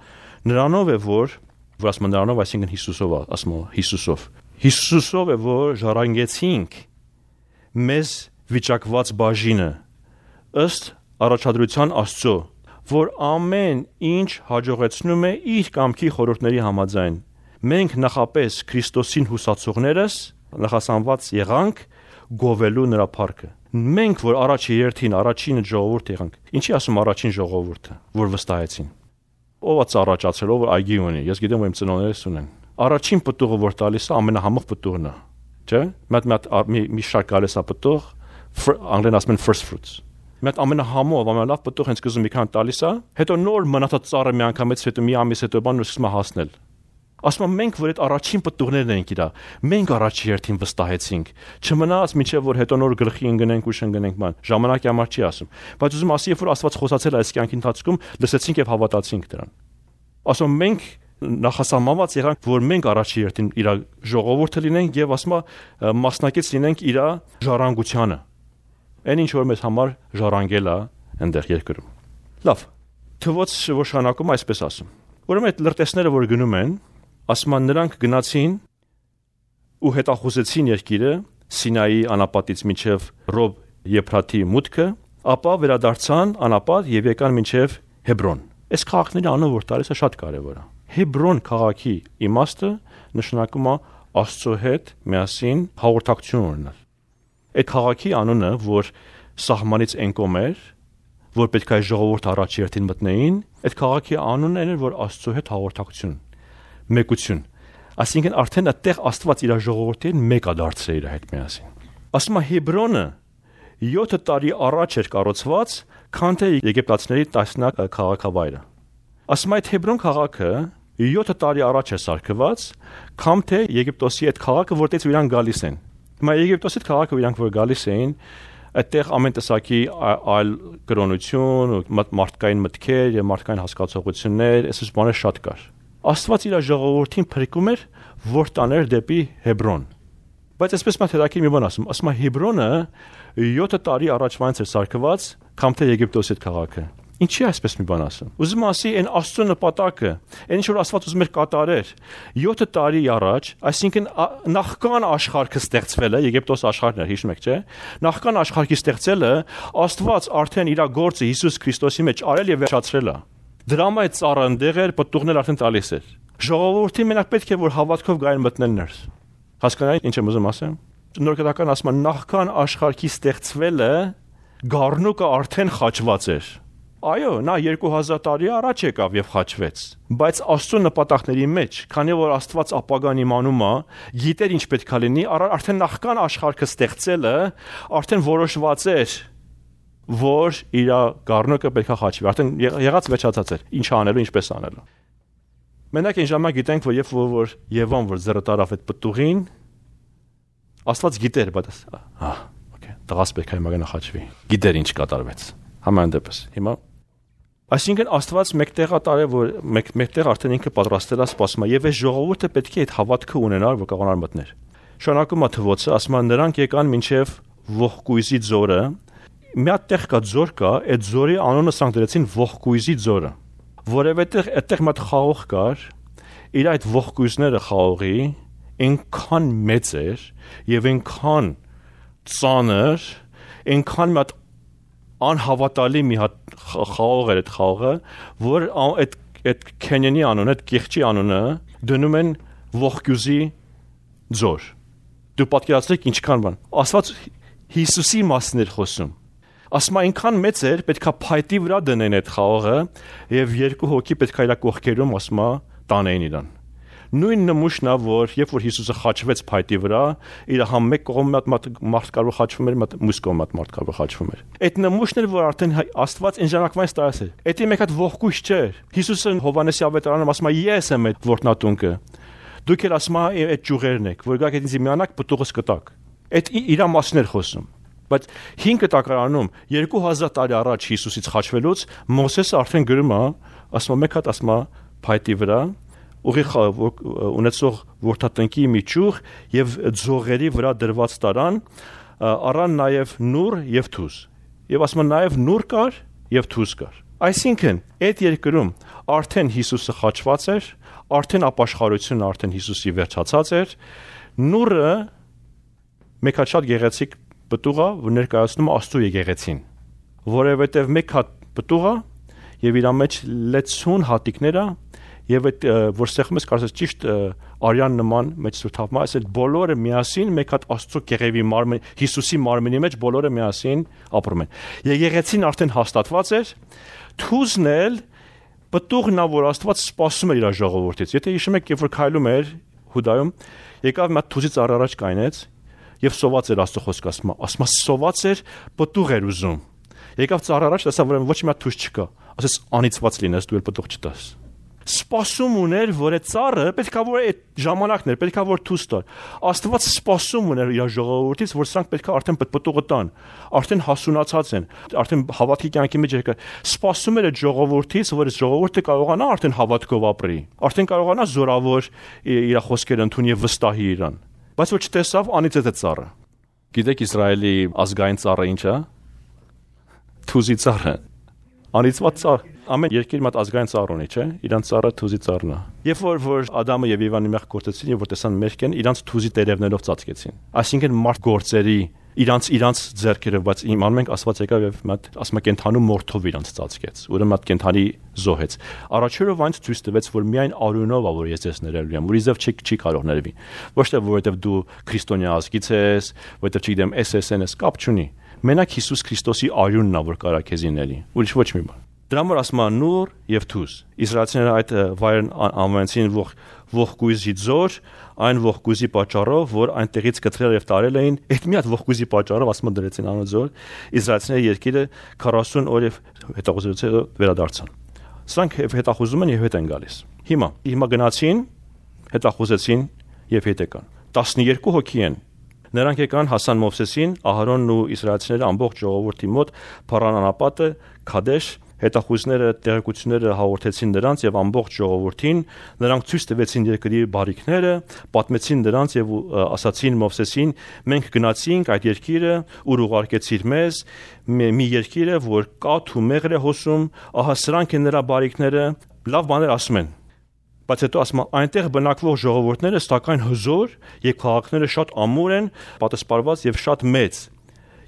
Speaker 1: նրանով է որ ասում է նրանով, այսինքն Հիսուսով, ասում է Հիսուսով։ Հիսուսով է որ ժառանգեցինք մեզ վիճակված բաժինը ըստ առաջադրության Աստծո, որ ամեն ինչ հաջողեցնում է իր կամքի խորհուրդների համաձայն։ Մենք նախապես Քրիստոսին հուսացողներս նախասանված եղանք գովելու նրա փառքը։ Մենք որ առաջի երթին առաջին ժողովուրդ եղանք։ Ինչի ասում առաջին ժողովուրդը, որ վստահեցին։ Ով է ծառաճացել, ով այգի ունի։ Ես գիտեմ որ իմ ծնողներս ունեն։ Առաջին պտուղը որ տալիս է ամենահամեղ պտուղն է, չէ՞։ Մի շարք գալիս է պտուղ, անգլերեն ասում են first fruits։ Մի հատ ամենահամով, ամենալավ պտուղ հենց սկզբում մի քան տալիս է, հետո նոր մնացած ծառը մի անգամից հետո մի ամիս հետո բան սկսում է հասնել։ Ասում եմ մենք որ այդ առաջին պտուղներն ենք իրա, մենք առաջի երթին վստահեցինք։ Չմնաց միջև որ հետո նոր գլխի ընկնենք ու շնգնենք ման։ Ժամանակի համար չի ասում։ Բայց ուզում ասի երբ որ Աստված խոսացել է այս կյանքի ընթացքում, լսեցինք եւ հավատացինք դրան։ Ասում մենք նախասահմանված եղանք որ մենք առաջի երթին իր ժողովուրդը լինենք եւ ասում մասնակից լինենք իր ժառանգությանը։ Այն ինչ որ մեզ համար ժառանգել է այնտեղ երկրում։ Լավ։ Թվոց շնորհանակում այսպես ասում։ Ուրեմն այդ լրտեսները որ գնում են ասում են նրանք գնացին ու հետախուզեցին երկիրը Սինայի անապատից մինչև Ռոբ Եփրաթի մուտքը, ապա վերադարձան անապատ եւ եկան մինչև Հեբրոն։ Այս քաղաքների անունը որ տալիս է շատ կարեւոր է։ Հեբրոն քաղաքի իմաստը նշանակում է Աստծո հետ միասին հաղորդակցություն ունենալ։ Այդ քաղաքի անունը որ սահմանից են կոմեր, որ պետք է ժողովուրդ առաջ երթին մտնեին, այդ քաղաքի անունն էր որ Աստծո հետ հաղորդակցություն, մեկություն։ Այսինքն արդեն այդտեղ Աստված իր ժողովրդին մեկ է դարձրել իր հետ միասին։ Ասում է Հեբրոնը 7 տարի առաջ էր կառուցված, քան թե եգիպտացիների տասնյակ քաղաքավայրը։ Ասում է այդ Հեբրոն քաղաքը 7 տարի առաջ է սարքված, քան թե Եգիպտոսի այդ քաղաքը, որտեղից իրանք գալիս են։ Հիմա Եգիպտոսի քաղաքը իրանք որ գալիս էին, այդտեղ ամեն տեսակի այլ կրոնություն, մարդկային մտքեր եւ մարդկային հասկացողություններ, այսպես բաներ շատ կար։ Աստված իր ժողովրդին փրկում էր, որ տաներ դեպի Հեբրոն։ Բայց այսպես մա թերակի մի բան ասում է Հեբրոնը 7 տարի առաջվանից էր սարքված, քան թե Եգիպտոսի քաղաքը։ Ինչի այսպես մի բան ասում։ Ուզում ասի այն Աստծո նպատակը, այն ինչ որ Աստված ուզում էր կատարեր 7 տարի առաջ, այսինքն նախքան աշխարհը ստեղծվել է, Եգիպտոս աշխարհն էր, հիշում եք, չէ՞։ Նախքան աշխարհի ստեղծելը Աստված արդեն իր գործը Հիսուս Քրիստոսի մեջ արել եւ վերջացրել է։ Դրամա այդ ծառը ընդեղ էր, պտուղներ արդեն տալիս էր։ Ժողովրդին մենակ պետք է որ հավատքով գային մտնել ներս։ Հասկանայի ինչ եմ ուզում ասեմ։ Նորկետական ասում են նախքան աշխարհի ստեղծվելը գառնուկը արդեն խաչված էր։ Այո, նա 2000 տարի առաջ եկավ եւ խաչվեց, բայց Աստծո նպատակների մեջ, քանի որ Աստված ապագան իմանում է, գիտեր ինչ պետքա լինի, արդեն նախքան աշխարհը ստեղծելը արդեն որոշված էր, որ իր գառնուկը պետքա խաչվի, արդեն եղած վերջացած էր, ինչ անելու, ինչպես անելու։ Մենակ այն ժամանակ գիտենք, որ երբ որ Եվան որ ձեռը տարավ այդ պտուղին, Աստված գիտեր, բայց օքեյ, տղաս պետքա հիմա գնա խաչվի։ Գիտեր ինչ կատարվեց։ Համայն դեպս։ Հիմա այսինքն Աստված մեկտեղ ատարե որ մեկտեղ արդեն ինքը պատրաստել է սպասում եւ այս ժողովուրդը պետք է այդ հավատքը ունենար որ կարողանար մտնել։ Շնորհակալ եմ թվոցը, ասում են նրանք եկան մինչև ողկույզի ձորը, մի հատ տեղ կա ձոր կա, այդ ձորի անունը սրանք դրեցին ողկույզի ձորը, որովհետև այդտեղ մի հատ խաղող կար, իր այդ ողկույզները խաղողի այնքան մեծ էր եւ այնքան ծանր, այնքան մի հատ անհավատալի մի հատ խաղող էր այդ խաղողը, որ այդ քենյանի անունը, այդ կեղճի անունը դնում են ողկույզի ձոր։ Դու պատկերացրեք ինչքան բան։ Աստված Հիսուսի մասն էր խոսում։ Ասма այնքան մեծ էր, պետքա փայտի վրա դնեն այդ խաղողը եւ երկու հոգի պետքա իր կողքերում ասма տանեին իրան։ Նույն նմուշն է, որ երբ որ Հիսուսը խաչվեց փայտի վրա, իր համ մեկ կողմը մարդ կարող խաչվում էր, մյուս կողմը մարդ կարող խաչվում էր։ Այդ նմուշն էր, որ արդեն Աստված այն ժամանակվանից տարած էր։ Դա մեկ հատ ողկույզ չէր։ Հիսուսը Հովհաննեսի ավետարանում ասում է ես եմ այդ ворտնատունկը։ Դուք էլ ասում եք այդ ճյուղերն եք, որ գաք ինձ միանաք պտուղս կտակ։ Այդ իր մասն էր խոսում։ Բայց 5 տակարանում 2000 տարի առաջ Հիսուսից խաչվելուց Մովսեսը արդեն գրում է, ասում է մեկ հատ ասում է փայտի վրա ուղիղ ունեցող որդատնկի մի ճյուղ եւ ձողերի վրա դրված տարան, առան նաեւ նուր եւ թուզ։ Եվ ասում է նաեւ նուր կար եւ թուզ կար։ Այսինքն այդ երկրում արդեն Հիսուսը խաչված էր, արդեն ապաշխարությունը արդեն Հիսուսի վերջացած էր, նուրը մեկ հատ շատ գեղեցիկ պտուղ է, որ ներկայացնում է Աստծո եկեղեցին, որովհետև մեկ հատ պտուղ է եւ իր մեջ լեցուն հատիկներ է եւ այդ որ սեղմում ես կարծես ճիշտ արյան նման մեջ սրտավմա, այս բոլորը միասին մեկ հատ Աստծո կեղևի մարմին, Հիսուսի մարմինի մեջ բոլորը միասին ապրում են։ Եկեղեցին արդեն հաստատված էր, թուզն էլ պտուղն է, որ Աստված սպասում էր իր ժողովրդից։ Եթե հիշում եք, երբ որ քայլում էր Հուդայում, եկավ մի հատ թուզից առաջ կայնեց եւ սոված էր Աստծո խոսքը ասում սոված էր պտուղ էր ուզում։ Եկավ ծառ առաջ, տեսավ որ ոչ մի հատ թուզ չկա, ասես անիծված լինես, դու էլ պտուղ չտաս։ Սպասում ուներ, որ այդ ծառը պետքա որ այդ ժամանակներ, պետքա որ թուզ տար։ Աստված սպասում ուներ իր ժողովրդից, որ սրանք պետքա արդեն պտուղը տան, արդեն հասունացած են, արդեն հավատքի կյանքի մեջ եկա։ Սպասում էր այդ ժողովրդից, որ այդ ժողովուրդը կարողանա արդեն հավատքով ապրի, արդեն կարողանա զորավոր իր խոսքերը ընդունի եւ վստահի իրան։ Բայց ոչ տեսավ անիծեց այդ ծառը։ Գիտեք Իսրայելի ազգային ծառը ինչ է։ Թուզի ծառը։ Անիծված ծառ։ Ամեն երկիր մատ ազգային ծառ ունի, չէ՞։ Իրանց ծառը թուզի ծառն է։ Երբ որ Ադամը եւ Եվան մեղ գործեցին եւ որ տեսան մերկ են, իրանց թուզի տերևներով ծածկեցին։ Այսինքն մարդ գործերի իրանց ձեռքերով, բայց իմանում ենք Աստված եկավ եւ մատ ասում է կենթանու մորթով իրանց ծածկեց։ Ուրեմն մատ կենթանի զոհեց։ Առաջերով այնց ցույց տվեց, որ միայն արյունով է, որ ես ձեզ ներելու եմ, ուրիշ չի կարող ներվի։ Ոչ թե որովհետեւ դու քրիստոնյա ազգից ես, որովհետեւ չգիտեմ SSN ես, կապ չունի։ Մենակ Հիսուս Քրիստոսի արյունն է, որ կարա քեզ իների, ուրիշ ոչ մի բան։ Դրա համար ասում է նուր եւ թուզ։ Իսրայելցիները այդ վայրն անվանեցին ողկույզի ձոր, այն ողկույզի պատճառով, որ այնտեղից կտրել եւ տարել էին, այդ մի հատ ողկույզի պատճառով ասում դրեցին անո ձոր, իսրայելցիները երկիրը 40 օր եւ հետախուզությունից վերադարձան։ Սրանք հետախուզում են եւ հետ են գալիս։ Հիմա գնացին, հետախուզեցին եւ հետ եկան։ 12 հոգի են։ Նրանք եկան հասան Մովսեսին, Ահարոնն ու իսրայելցիները ամբողջ ժողովրդի մոտ Փարան անապատը, Քադեշ, հետախույզները տեղեկությունները հաղորդեցին նրանց եւ ամբողջ ժողովրդին, նրանք ցույց տվեցին երկրի բարիքները, պատմեցին նրանց եւ ասացին Մովսեսին, մենք գնացինք այդ երկիրը, ուր ուղարկեցիր մեզ, մի երկիրը, որ կաթ ու մեղր է հոսում, ահա սրանք են նրա բարիքները, լավ բաներ ասում են։ Բայց հետո ասում այնտեղ բնակվող ժողովուրդները սակայն հզոր եւ քաղաքները շատ ամուր են, պատասպարված եւ շատ մեծ։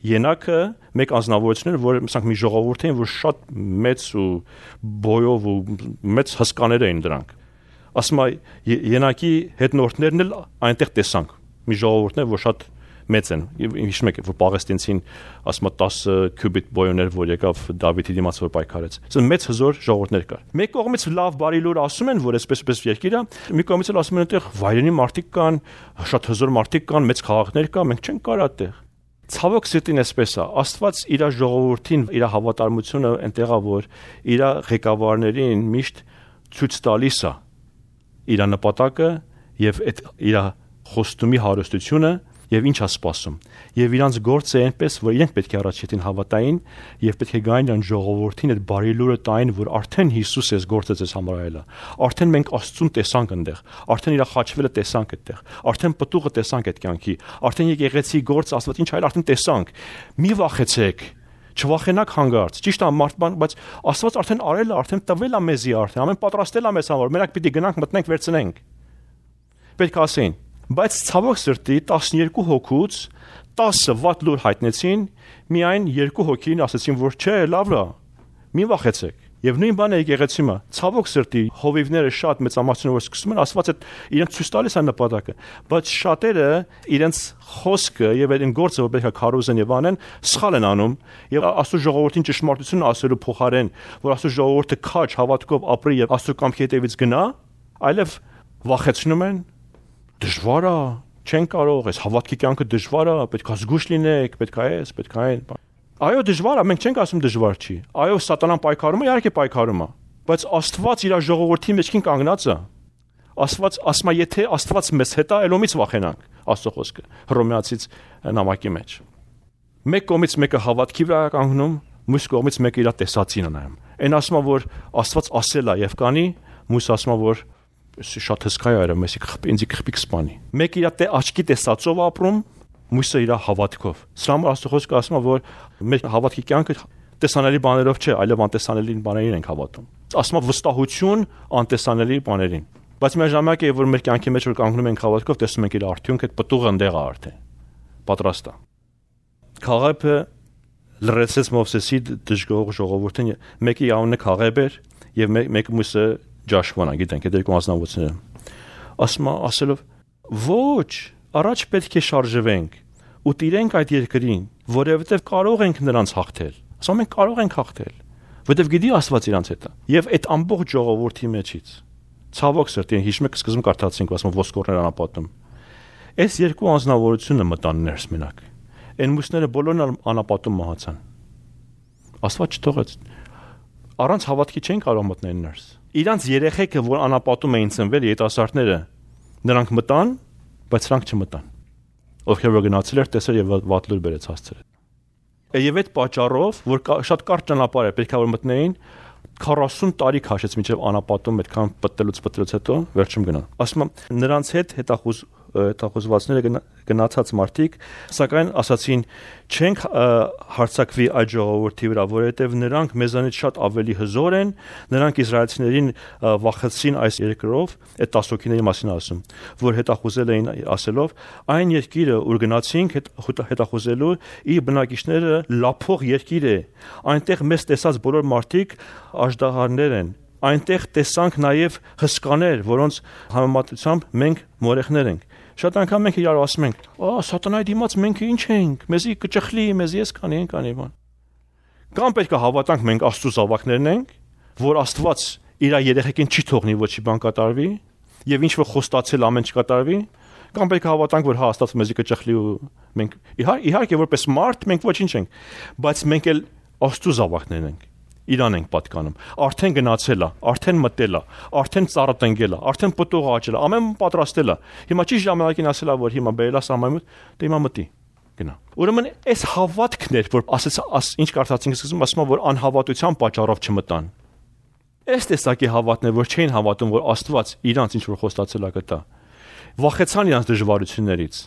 Speaker 1: Ենակը մեկ անձնավորություն էր, որ ասենք մի ժողովուրդ էին, որ շատ մեծ ու բոյով ու մեծ հսկաներ էին դրանք։ Ասում ենակի հետնորդներն էլ այնտեղ տեսանք։ Մի ժողովուրդներ, որ շատ մեծ են։ Հիշում եք, որ Պաղեստինցին ասում 10 քյուբիտ բոյոներ, որ եկավ Դավիթի դիմաց որ պայքարեց։ Ասում մեծ հզոր ժողովուրդներ կար։ Մեկ կողմից լավ բարի լուր ասում են, որ այսպես երկիր է, մի կողմից էլ ասում են այնտեղ վայրենի մարդիկ կան, շատ հզոր մարդիկ կան, մեծ քաղաքներ կան, մենք չենք կարող այդտեղ։ Ցավոք սրտին այսպես է, Աստված իր ժողովրդին, իր հավատարմությունը այնտեղ է, որ իր ղեկավարներին միշտ ցույց տալիս է իր նպատակը եւ այդ իր խոստումի հարստությունը Եվ ինչ է սպասում։ Եվ իրանց գործը այնպես, որ իրենք պետք է առաջին հավատային եւ պետք է գային իրան ժողովրդին այդ բարի լուրը տային, որ արդեն Հիսուս էս գործը ձեզ համար այլա։ Արդեն մենք Աստծուն տեսանք այնտեղ, արդեն իր խաչվելը տեսանք այդտեղ, արդեն պտուղը տեսանք այդ կյանքի, արդեն եկեղեցի գործ Աստված ինչ այլ արդեն տեսանք։ Մի վախեցեք, չվախենաք հանգարց։ Ճիշտ է մարդման, բայց Աստված արդեն արել է, արդեն տվել է մեզի արդեն, ամեն պատրաստել է մեզ համար, մենակ պիտի գնանք մտնենք վերցնենք։ Պետք է ասեն, բայց ցավոք սրտի 12 հոգուց 10-ը վատ լուր հայտնեցին, միայն 2 հոգին ասացին, որ չէ, լավ է, մի վախեցեք։ Եվ նույն բանը եկեղեցի մա, ցավոք սրտի հովիվները շատ մեծամասնություն որ սկսում են, Աստված այդ իրենց ցույց տալիս է նպատակը, բայց շատերը իրենց խոսքը եւ այդ գործը որ պետք է քարոզեն եւ անեն, սխալ են անում եւ Աստծո ժողովրդին ճշմարտությունը ասելու փոխարեն, որ Աստծո ժողովուրդը քաչ հավատքով ապրի եւ Աստծո կամքի հետևից գնա, այլև վախեցնում են, դժվար է, չեն կարող, այս հավատքի կյանքը դժվար է, պետք է զգուշ լինեք, պետք է այս, պետք է այն։ Այո, դժվար է, մենք չենք ասում դժվար չի։ Այո, սատանան պայքարում է, իհարկե պայքարում է, բայց Աստված իր ժողովրդի մեջքին կանգնած է։ Աստված ասում է, եթե Աստված մեզ հետ է, ելոմից վախենանք, Աստծո խոսքը Հռոմեացից նամակի մեջ։ Մեկ կողմից մեկը հավատքի վրա կանգնում, մյուս կողմից մեկը իր տեսածին է նայում։ Այն ասում է, որ Աստված ասել է եւ կանի, մյուս ասում է, որ շատ հսկա է, մեզ ինձ քփիկ սպանի։ Մեկը իր աչքի տեսածով ապրում, մյուսը իր հավատքով։ Սրա համար Աստծո խոսքը ասում է, որ մեր հավատքի կյանքը տեսանելի բաներով չէ, այլև անտեսանելի բաներին ենք հավատում։ Ասում է վստահություն անտեսանելի բաներին։ Բայց միաժամանակ է, որ մեր կյանքի մեջ որ կանգնում ենք հավատքով, տեսնում ենք իր արդյունքը, այդ պտուղը ընդեղ է արդեն։ Պատրաստ է։ Քաղեբը լրացեց Մովսեսի դժգոհ ժողովրդին, մեկի անունը Քաղեբ էր եւ մեկը մյուսը Ջաշվան, գիտենք, այդ երկու անձնավորները։ Ասում է, ասելով. «Ոչ, առաջ պետք է շարժվենք ու տիրենք այդ երկրին, որովհետև կարող ենք նրանց հաղթել»։ Ասում մենք կարող ենք հաղթել, որովհետև գիտի Աստված իրանց հետ է։ Եվ այդ ամբողջ ժողովրդի մեջից ցավոք սրտի հիշում եք սկզբում կարդացինք, ասում ոսկորներ անապատում։ Այս երկու անձնավորությունը մտան ներս մենակ։ Այն մյուսները բոլորն անապատում մահացան։ Աստված չթողեց։ Առանց հավատքի չեն կարող մտնել ներս։ Իրանց երեխեքը, որ անապատում էին ծնվել, երիտասարդները, նրանք մտան, բայց նրանք չմտան։ Ովքեր որ գնացել էր, տեսել եւ վատ լուր բերեց հասցրել։ Եվ այդ պատճառով, որ շատ կարճ ճանապարհ է, պետք է որ մտնեին, 40 տարի քաշեց մինչև անապատում այդքան պտտելուց հետո վերջում գնան։ Ասում եմ, նրանց հետ հետախուզվածները գնացած մարդիկ, սակայն ասացին, չենք հարցակվի այդ ժողովրդի վրա, որովհետև նրանք մեզանից շատ ավելի հզոր են, նրանք իսրայելցիներին վախեցրին այս երկրով, այդ 10 հոգիների մասին ասում, որ հետախուզել էին ասելով, այն երկիրը, ուր գնացինք հետախուզելու, իր բնակիչները լափող երկիր է, այնտեղ մեզ տեսած բոլոր մարդիկ աժդահարներ են, այնտեղ տեսանք նաև հսկաներ, որոնց համեմատությամբ մենք մորեխներ ենք։ Շատ անգամ մենք իրար ասում ենք. «Սատանայի դիմաց մենք ինչ ենք, մեզի կճխլի, մեզ ես կանի բան»։ Կամ պետք է հավատանք մենք Աստծո զավակներն ենք, որ Աստված իր երեխեքին չի թողնի ոչի բան կատարվի, եւ ինչ որ խոստացել ամեն չկատարվի, կամ պետք է հավատանք, որ հա Աստված մեզի կճխլի ու մենք իհարկե որպես մարդ մենք ոչինչ ենք, բայց մենք էլ Աստծո զավակներն ենք։ Իրան ենք պատկանում։ Արդեն գնացել է, արդեն մտել է, արդեն ծառը տնկել է, արդեն պտուղը աճել է, ամեն բան պատրաստել է։ Հիմա ճիշտ ժամանակին ասել է, որ հիմա բերել է սահմանին, դե հիմա մտի։ Գնա։ Ուրեմն այս հավատքն էր, որ ասեց, ինչ կարծացինք սկզբում, ասում որ անհավատության պատճառով չմտան։ Այս տեսակի հավատն է, որ չէին հավատում, որ Աստված իրանց ինչ որ խոստացել է կտա։ Վախեցան իրանց դժվարություններից։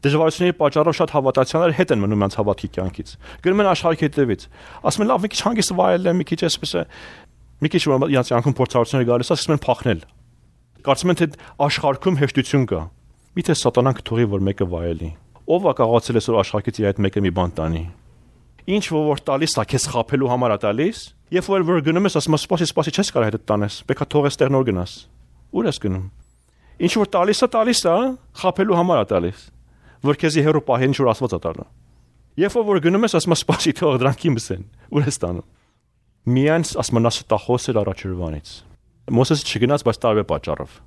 Speaker 1: Դժվարությունների պատճառով շատ հավատացյալներ հետ են մնում իրանց հավատքի կյանքից։ Գնում են աշխարհի հետևից։ Ասում են լավ, մի քիչ հանգիստ վայելել եմ, մի քիչ այսպես է, մի քիչ որ իրանց կյանքում փորձառություններ գալիս է, սկսում են փախնել։ Կարծում են թե աշխարհքում հեշտություն կա։ Միթե սատանան կթողի որ մեկը վայելի։ Ով է կարողացել այսօր աշխարհից իր այդ մեկը մի բան տանի։ Ինչ որ տալիս է, քեզ խափելու համար է տալիս, երբ որ գնում ես, ասում ես սպասի, չես կարող հետդ տանես, պետք է թողես տեղ նոր գնաս։ Ուր ես գնում։ Ինչ որ տալիս է, խափելու համար է տալիս, որ քեզի հերո պահեն ինչ որ Աստված է տալու։ Երբ որ գնում ես, ասում ես սպասի, թող դրանք իմս են։ Ուր ես տանում։ Միայն ասում նա ստախոս էր առաջերվանից։ Մոսեսը չգնաց, բայց տարբեր պատճառով։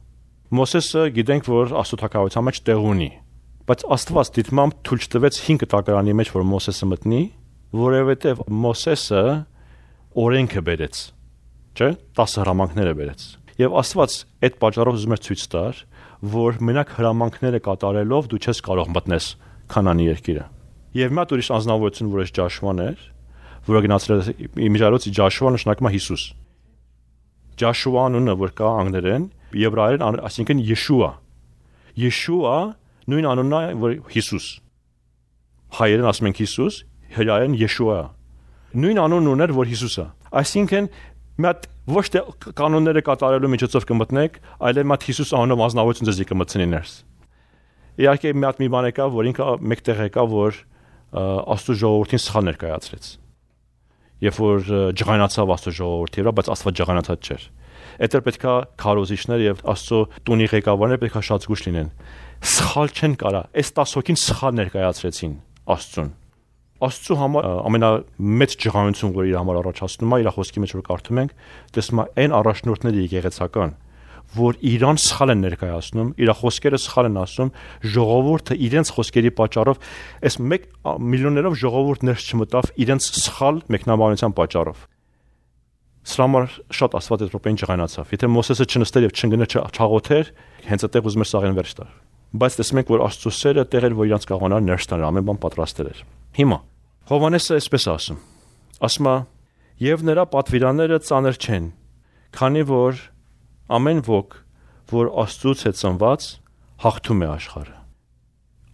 Speaker 1: Մոսեսը գիտենք, որ Աստծո թագավորության մեջ տեղ ունի, բայց Աստված դիտմամբ թույլ չտվեց 5 տակարանի մեջ, որ Մոսեսը մտնի, որովհետև Մոսեսը օրենքը բերեց, չէ՞, 10 հրամանքները բերեց։ Եվ Աստված այդ պատճառով ուզում էր ցույց տար, որ մենակ հրամանքները կատարելով դու չես կարող մտնես Քանանի երկիրը։ Եվ մի հատ ուրիշ անձնավորություն, որ այս Ջաշուան էր, որը գնացել է իմիջիայլոց Ջաշուա նշանակում է Հիսուս։ Ջաշուա անունը, որ կա անգլերեն, եբրայերեն, այսինքն Յեշուա։ Յեշուա նույն անունն է, որ Հիսուս։ Հայերեն ասում ենք Հիսուս, հրայերեն Յեշուա։ Նույն անունն ուներ, որ Հիսուսը։ Այսինքն մի հատ ոչ թե կանոնները կատարելու միջոցով կմտնեք, այլ մի հատ Հիսուս անունով անձնավորություն ձեզ կմտնի ներս։ Իհարկե մի հատ մի բան եկավ, որ ինքը մեկտեղ եկավ, որ Աստծո ժողովրդին սխալ ներկայացրեց։ Երբ որ ջղայնացավ Աստծո ժողովրդի վրա, բայց Աստված ջղայնացած չէր։ Այդտեղ պետքա քարոզիչներ եւ Աստծո տունի ղեկավարները պետքա շատ զգուշ լինեն։ Սխալ չեն կարա, այս 10 հոգին սխալ ներկայացրեցին Աստծուն։ Աստծո համար ամենամեծ ջղայնություն, որ իր համար առաջացնում է, իր խոսքի մեջ որ կարդում ենք, տեսնում է այն առաջնորդները եկեղեցական, որ իրան սխալ են ներկայացնում, իր խոսքերը սխալ են ասում, ժողովուրդը իրենց խոսքերի պատճառով, այս 1 միլիոններով ժողովուրդ ներս չմտավ իրենց սխալ մեկնաբանության պատճառով։ Սրա համար շատ Աստված այդ րոպեին ջղայնացավ։ Եթե Մոսեսը չնստեր եւ չընկներ չաղոթեր, հենց այդտեղ ուզում էր սաղեն վերջ տալ։ Բայց տեսնում ենք, որ Աստծո սերը տեղ էր, որ իրանց կաղանար ներս տաներ, ամեն բան պատրաստել էր։ Հիմա Հովհաննեսը այսպես ասում։ Ասում է. «Եվ նրա պատվիրանները ծանր չեն, քանի որ ամեն ոք, որ Աստծուց է ծնված, հաղթում է աշխարհը։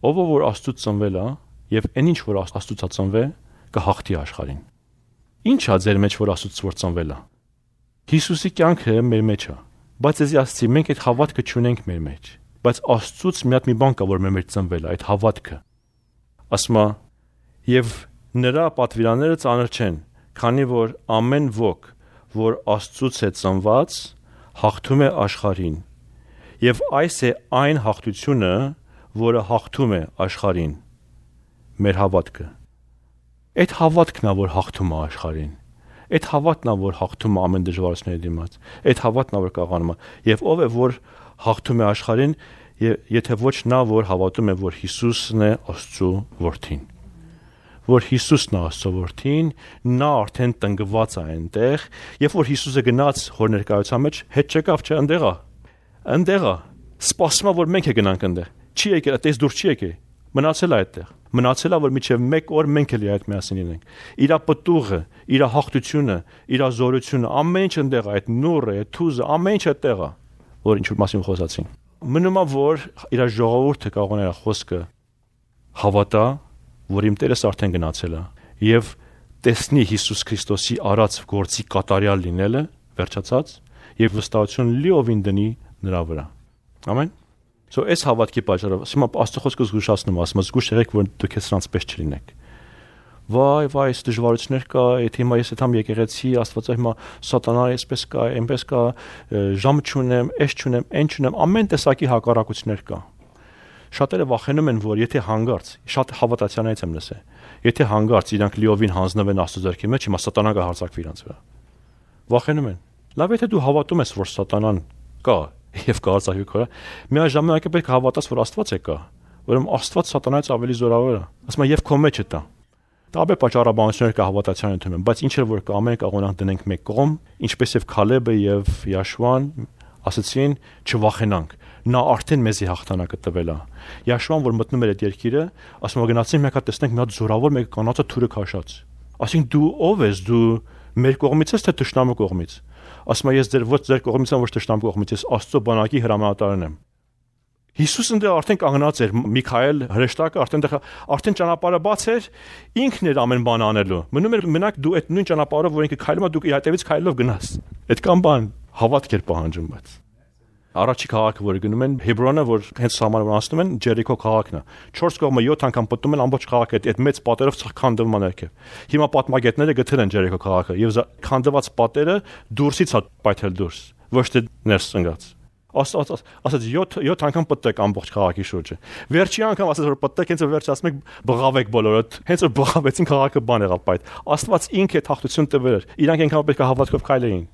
Speaker 1: Ով որ Աստծուց ծնվել է, եւ այն ինչ որ Աստծուց է ծնվել, կհաղթի աշխարհին»։ Ինչ է ձեր մեջ, որ Աստծուց որ ծնվել է։ Հիսուսի կյանքը մեր մեջ է, բայց էսի ասացի, մենք այդ հավատքը չունենք մեր մեջ, բայց Աստծուց մի հատ մի բան կա, որ մեր մեջ ծնվել է, այդ հավատքը։ Ասում է. «Եվ նրա պատվիրանները ծանր չեն, քանի որ ամեն ոք, որ Աստծուց է ծնված, հաղթում է աշխարհին, եւ այս է այն հաղթությունը, որը հաղթում է աշխարհին, մեր հավատքը»։ Այդ հավատքն է, որ հաղթում է աշխարհին։ Այդ հավատն է, որ հաղթում է ամեն դժվարությունների դիմաց։ Այդ հավատն է, որ կաղանում է։ Եվ ով է, որ հաղթում է աշխարհին, եթե ոչ նա, որ հավատում է, որ Հիսուսն է Աստծո որդին։ Որ Հիսուսն է Աստծո որդին, նա արդեն տնկված է այնտեղ, երբ որ Հիսուսը գնաց հոր ներկայության մեջ, հետ չեկավ, չէ, այնտեղ է, սպասում է, որ մենք գնանք այնտեղ։ Չի եկել, այդտեղից դուրս չի եկել, մնացել է այդտեղ։ Մնացել է, որ միջև 1 օր մենք էլ այդ միասին լինենք։ Իր պտուղը, իր հաղթությունը, իր զորությունը, ամեն ինչ այնտեղ է, այդ նուրը, այդ թուզը, ամեն ինչ այդտեղ է, որ ինչ որ մասին խոսացին։ Մնում է, որ իր ժողովուրդը կարող է խոսքը հավատա, որ իմ Տերս արդեն գնացել է եւ տեսնի Հիսուս Քրիստոսի արած գործի կատարյալ լինելը, վերջացած, եւ վստահություն լիովին դնի նրա վրա։ Ամեն։ So այս հավատքի պատճառով, հիմա Աստծո խոսքը զգուշացնում, ասում է, զգուշ եղեք, որ դուք հեսրանց պես չլինեք։ Վայ, այս դժվարություններ կա, այդ հիմա ես այդամ եկեղեցի, Աստվածը հիմա սատանա այսպես կա, այնպես կա, ժամ չունեմ, այս չունեմ, այն չունեմ, ամեն տեսակի հակառակություններ կա։ Շատերը վախենում են, որ եթե հանգարց, շատ հավատացյալներից եմ լսել, եթե հանգարց իրանք լիովին հանձնվեն Աստծո ձեռքի մեջ, հիմա սատանան կհարձակվի իրանց վրա։ Վախենում են։ Լավ, եթե դու հավատում ես, որ սատանան կա եւ կհարձակվի քո վրա, միաժամանակ պետք է հավատաս, որ Աստված է կա, ուրեմն Աստված սատանայից ավելի զորավոր է։ Ասում եմ, եւ քո մեջ է դա։ Տարբեր պատճառաբանություններ կա հավատացյալ ընդունում, բայց ինչ որ կա, ամեն կողմնանք դնենք մեկ կողմ, ինչպես եւ Քալեբը եւ Յաշուան ասացին, չվախենանք։ Նա արդեն մեզի հաղթանակը տվել է։ Յաշուան, որ մտնում էր այդ երկիրը, ասում է գնացին մեկ հատ տեսնենք մի հատ զորավոր մեկ կանացը թուրը քաշած։ Ասին դու ով ես, դու մեր կողմից ես թե թշնամու կողմից։ Ասում է ես ձեր կողմից եմ, ոչ թշնամու կողմից, ես Աստծո բանակի հրամանատարն եմ։ Հիսուսն դեռ արդեն կանգնած էր, Միքայել հրեշտակը արդեն ճանապարհը բաց էր, ինքն էր ամեն բան անելու։ Մնում էր մենակ դու այդ նույն ճանապարհով, որ ինքը քայլում է, դու իր հետևից քայլելով գնաս։ Այդքան բան հավատք էր պահանջում, բայց առաջի քաղաքը, որ գնում են Հեբրոնը, որ հենց սահմանը անցնում են, Ջերիքո քաղաքն է։ 4 կողմը 7 անգամ պատում են ամբողջ քաղաքը այդ մեծ պատերով քանդվում է ներքև։ Հիմա պատմագետները գտել են Ջերիքո քաղաքը եւ քանդված պատերը դուրսից է պայթել դուրս, ոչ թե ներս ընկած։ Ասած 7 անգամ պատտեք ամբողջ քաղաքի շուրջը։ Վերջի անգամ ասած որ պատտեք, հենց որ վերջ ասում եք բղավեք բոլորը, հենց որ բղավեցին քաղաքը բան եղավ պայթ։ Աստված ինքը հաղթություն տվել էր։ Իրանք այնքան պետք է հավատքով քայլեին։